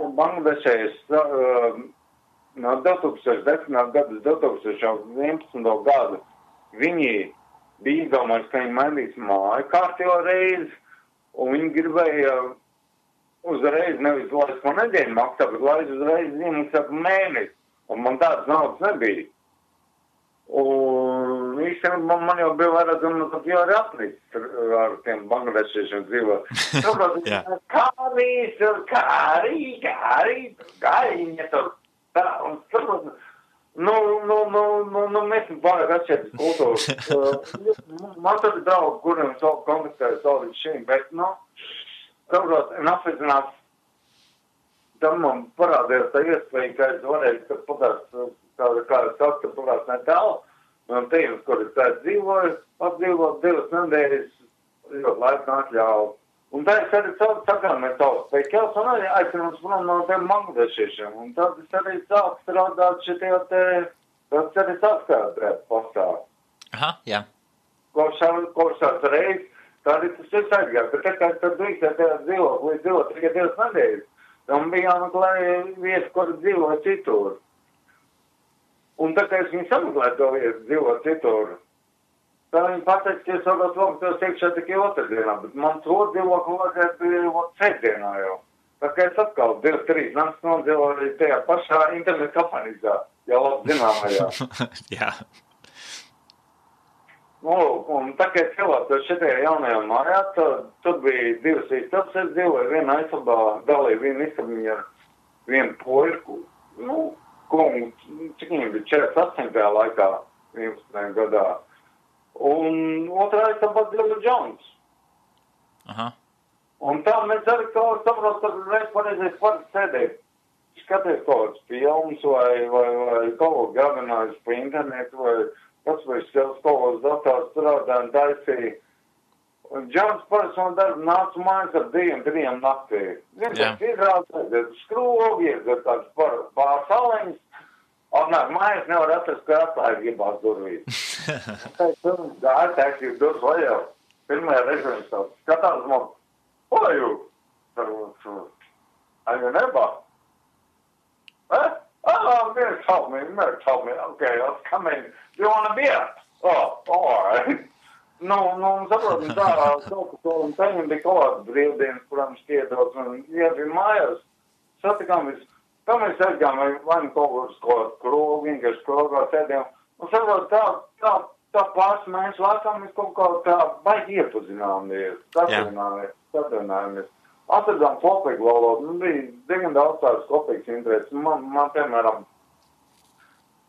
Bangladešais no 2010. gada 2011. gadu viņi bija izdomājis, ka viņi mainīs māju kārtībā reizi, un viņi gribēja uzreiz nevis laist ko nedēļu maksā, bet laist uzreiz iemaksā mēnesi. Un man tāds naudas nebija. Un īstenībā man jau bija vairāk, tad jau arī apnīcis ar tiem bangladešiešiem dzīvot. Saprot, kā viņi tur tā, un saprot, mēs vairāk atšķiet kultūru. Man tad ir draugi, kuriem kontaktēju savu līdz šīm, bet, saprot, un apvizinās, tam man parādījās tā iespēja, ka es varēju, kad patās, kā es saku, ka patās netālu, un tīmes, kur es tā dzīvoju, apdzīvot 2 nedēļas, ļoti laika atļauju. Un tā es arī sakāmies savus veikals, un arī aicinās prom no tiem bangladešiešiem, un tad es arī sāku strādāt šitie tas arī saskatāt pastāv. Aha, jā. Kopšās reiz, tā arī tas ir aizgājis, bet tā kā es tad drīkstēju dzīvot, līdz dzīvot tikai 2 nedēļas, tam bija jāmeklē vietas, kur dzīvoja citur. Un tā kā es viņu sameklēju to vietu dzīvot citur, tā viņi pateica, ka es varbūt lūgtos iekšā tikai otrdienā, bet man to dzīvokli vajadzētu sētdienā jau. Tā kā es atkal 2-3 nakts nodzīvoju tajā pašā internetu kapanīzā, jau labi zināmajā. Jā. Un tā kā es ielātos šitajā jaunajā mājā, tad bija 2 istabas, es dzīvoju vienā istabā, dalīju vienu istabiņu ar vienu poļu, cik viņam bija 48. laikā, 11. gadā. Un otrais tāpat Billy Jones. Aha. Un tā mēs arī kaut kā saprot, ka reiz pareizais var sēdēt, skaties kaut kāds films vai kaut ko gavinājis pa internetu vai pats vai kaut kāds dators strādā un taisīja. Un Džons parasti no darba nāca mājās ar 2-3 naktī. Viņš izrādās skrūvi, iedzēr tāds pārsaleņas. Atnāk mājās nevar atrast, ka atklāja gribās durvīs. Gāja taisīt durvis vaļā. Pirmajā reizē viņš tāds skatās man, what are you? Are you neighbor? Oh, Mary told me. Okay, let's come in. Do you want a beer? Oh, all right. Nu, saprotam, tā, kaut ko un taņem bija kaut kāds brīvdienas, kurām šķietos, un iedzīja mājās, satikām tā mēs aizgājām, vai nu kaut kāds krogu, vienkārši krogā sēdējām, un saprotam, tā pāris mēnešu laikā mēs kaut kā tā baigi iepazināmies, satrinājāmies. Atradām kopīgu valodu, bija diezgan daudz tādas kopīgas intereses. Man piemēram,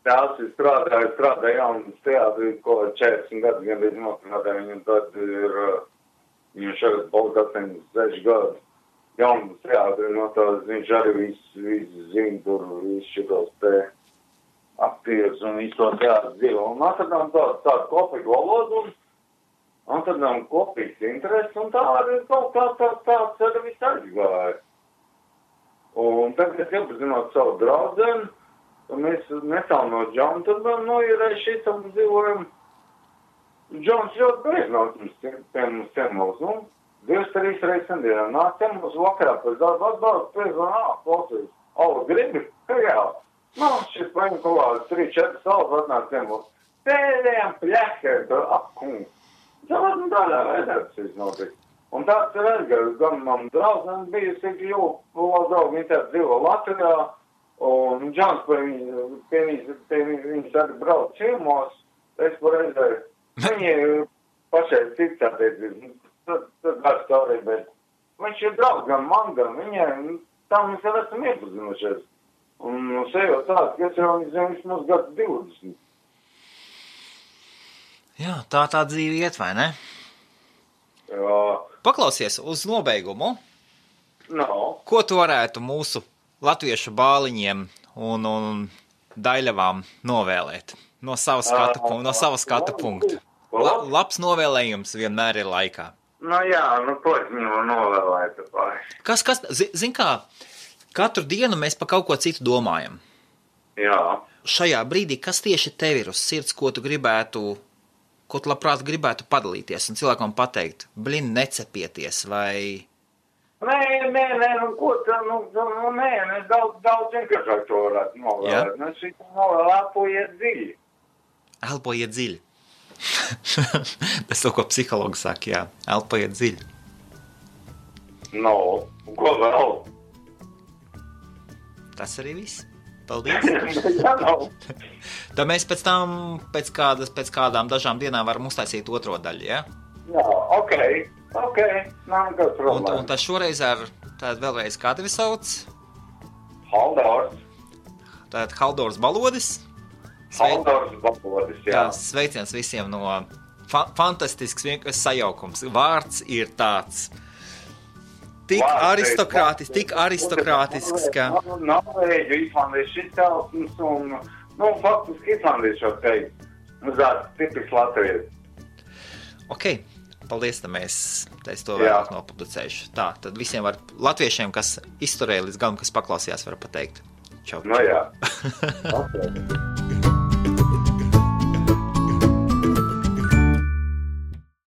tās ir strādāja jaunas teātri, ko 40 gadus gandrīz nostrādāja, viņam tad ir, viņam šeit palika 86 gadu. Jaunas teātri, no tās viņš arī visu zina tur, visu šitos te aktierus un visu to teātri dzīvo. Un atradām tādu kopīgu valodu, un tad nav kopīgs interesi, un tā arī kaut kā tāds arī viss aizgāja. Un tagad, kad iepazinot savu draudzeni, mēs netālu no Džona, tad ir šis un dzīvojam. Džons ļoti bieži nāk pie mums ciemos, 2-3 reizes nedēļā. Nāk ciemos vakarā pēc darba atbalstu, pēc klausīs, gribi? Jā. Šis paņem kaut kāds 3-4 salas atnāk ciemos. Pēdējām pļakēm, tur apkungs. Tādā veidā tas notiek. Un tāds ir aizgājis, gan man draudzene bijusi, jo draugi viņi tā dzīvo Latvijā, un Džons pie viņas arī brauc ciemos, es pareizēju. Viņi pašai cits attiecības, tad vairs stāvīgi, bet viņš ir draugs gan man, gan viņai, tā mēs jau esam iepazinušies. Un sejot tāds, ka es jau viņš mums gadu 20. Jā, tā dzīve iet, vai ne? Jā. Paklausies uz nobeigumu. No. Ko tu varētu mūsu latviešu bāliņiem un daļavām novēlēt? No sava skatu punkta. Labs novēlējums vienmēr ir laikā. Ko es viņu novēlētu? Kas, zin kā, katru dienu mēs pa kaut ko citu domājam. Jā. Šajā brīdī, kas tieši tev ir uz sirds, ko tu labprāt gribētu padalīties un cilvēkam pateikt, necepieties, vai... Nē, ko tā, daudz vienkāršāk to varētu novēlēt. Mēs šī novēl elpojiet dziļi. Elpojiet dziļi. Tas to, ko psihologi saka, jā, elpojiet dziļi. Ko vēl? Tas arī viss. Paldies. Jā, Tad mēs pēc kādām dažām dienām varam uztaisīt otro daļu, ja? Jā, ok, nav nekāds problēma. Un tas šoreiz vēlreiz kā tevi sauc? Haldors. Tātad Haldors Balodis. Haldors Balodis, jā. Sveiciens visiem no fantastisks vienkārši sajaukums. Vārds ir tāds. Tik aristokrātisks, ka... Norvēģu, islandiešu izcelsmes un, faktiski islandiešu jau teikt. Tipisks latvieši. Ok, paldies, es to vēlāk nopublicēšu. Tā, tad visiem latviešiem, kas izturēja līdz galam, kas paklausījās, var pateikt. Čau. Jā. Okay.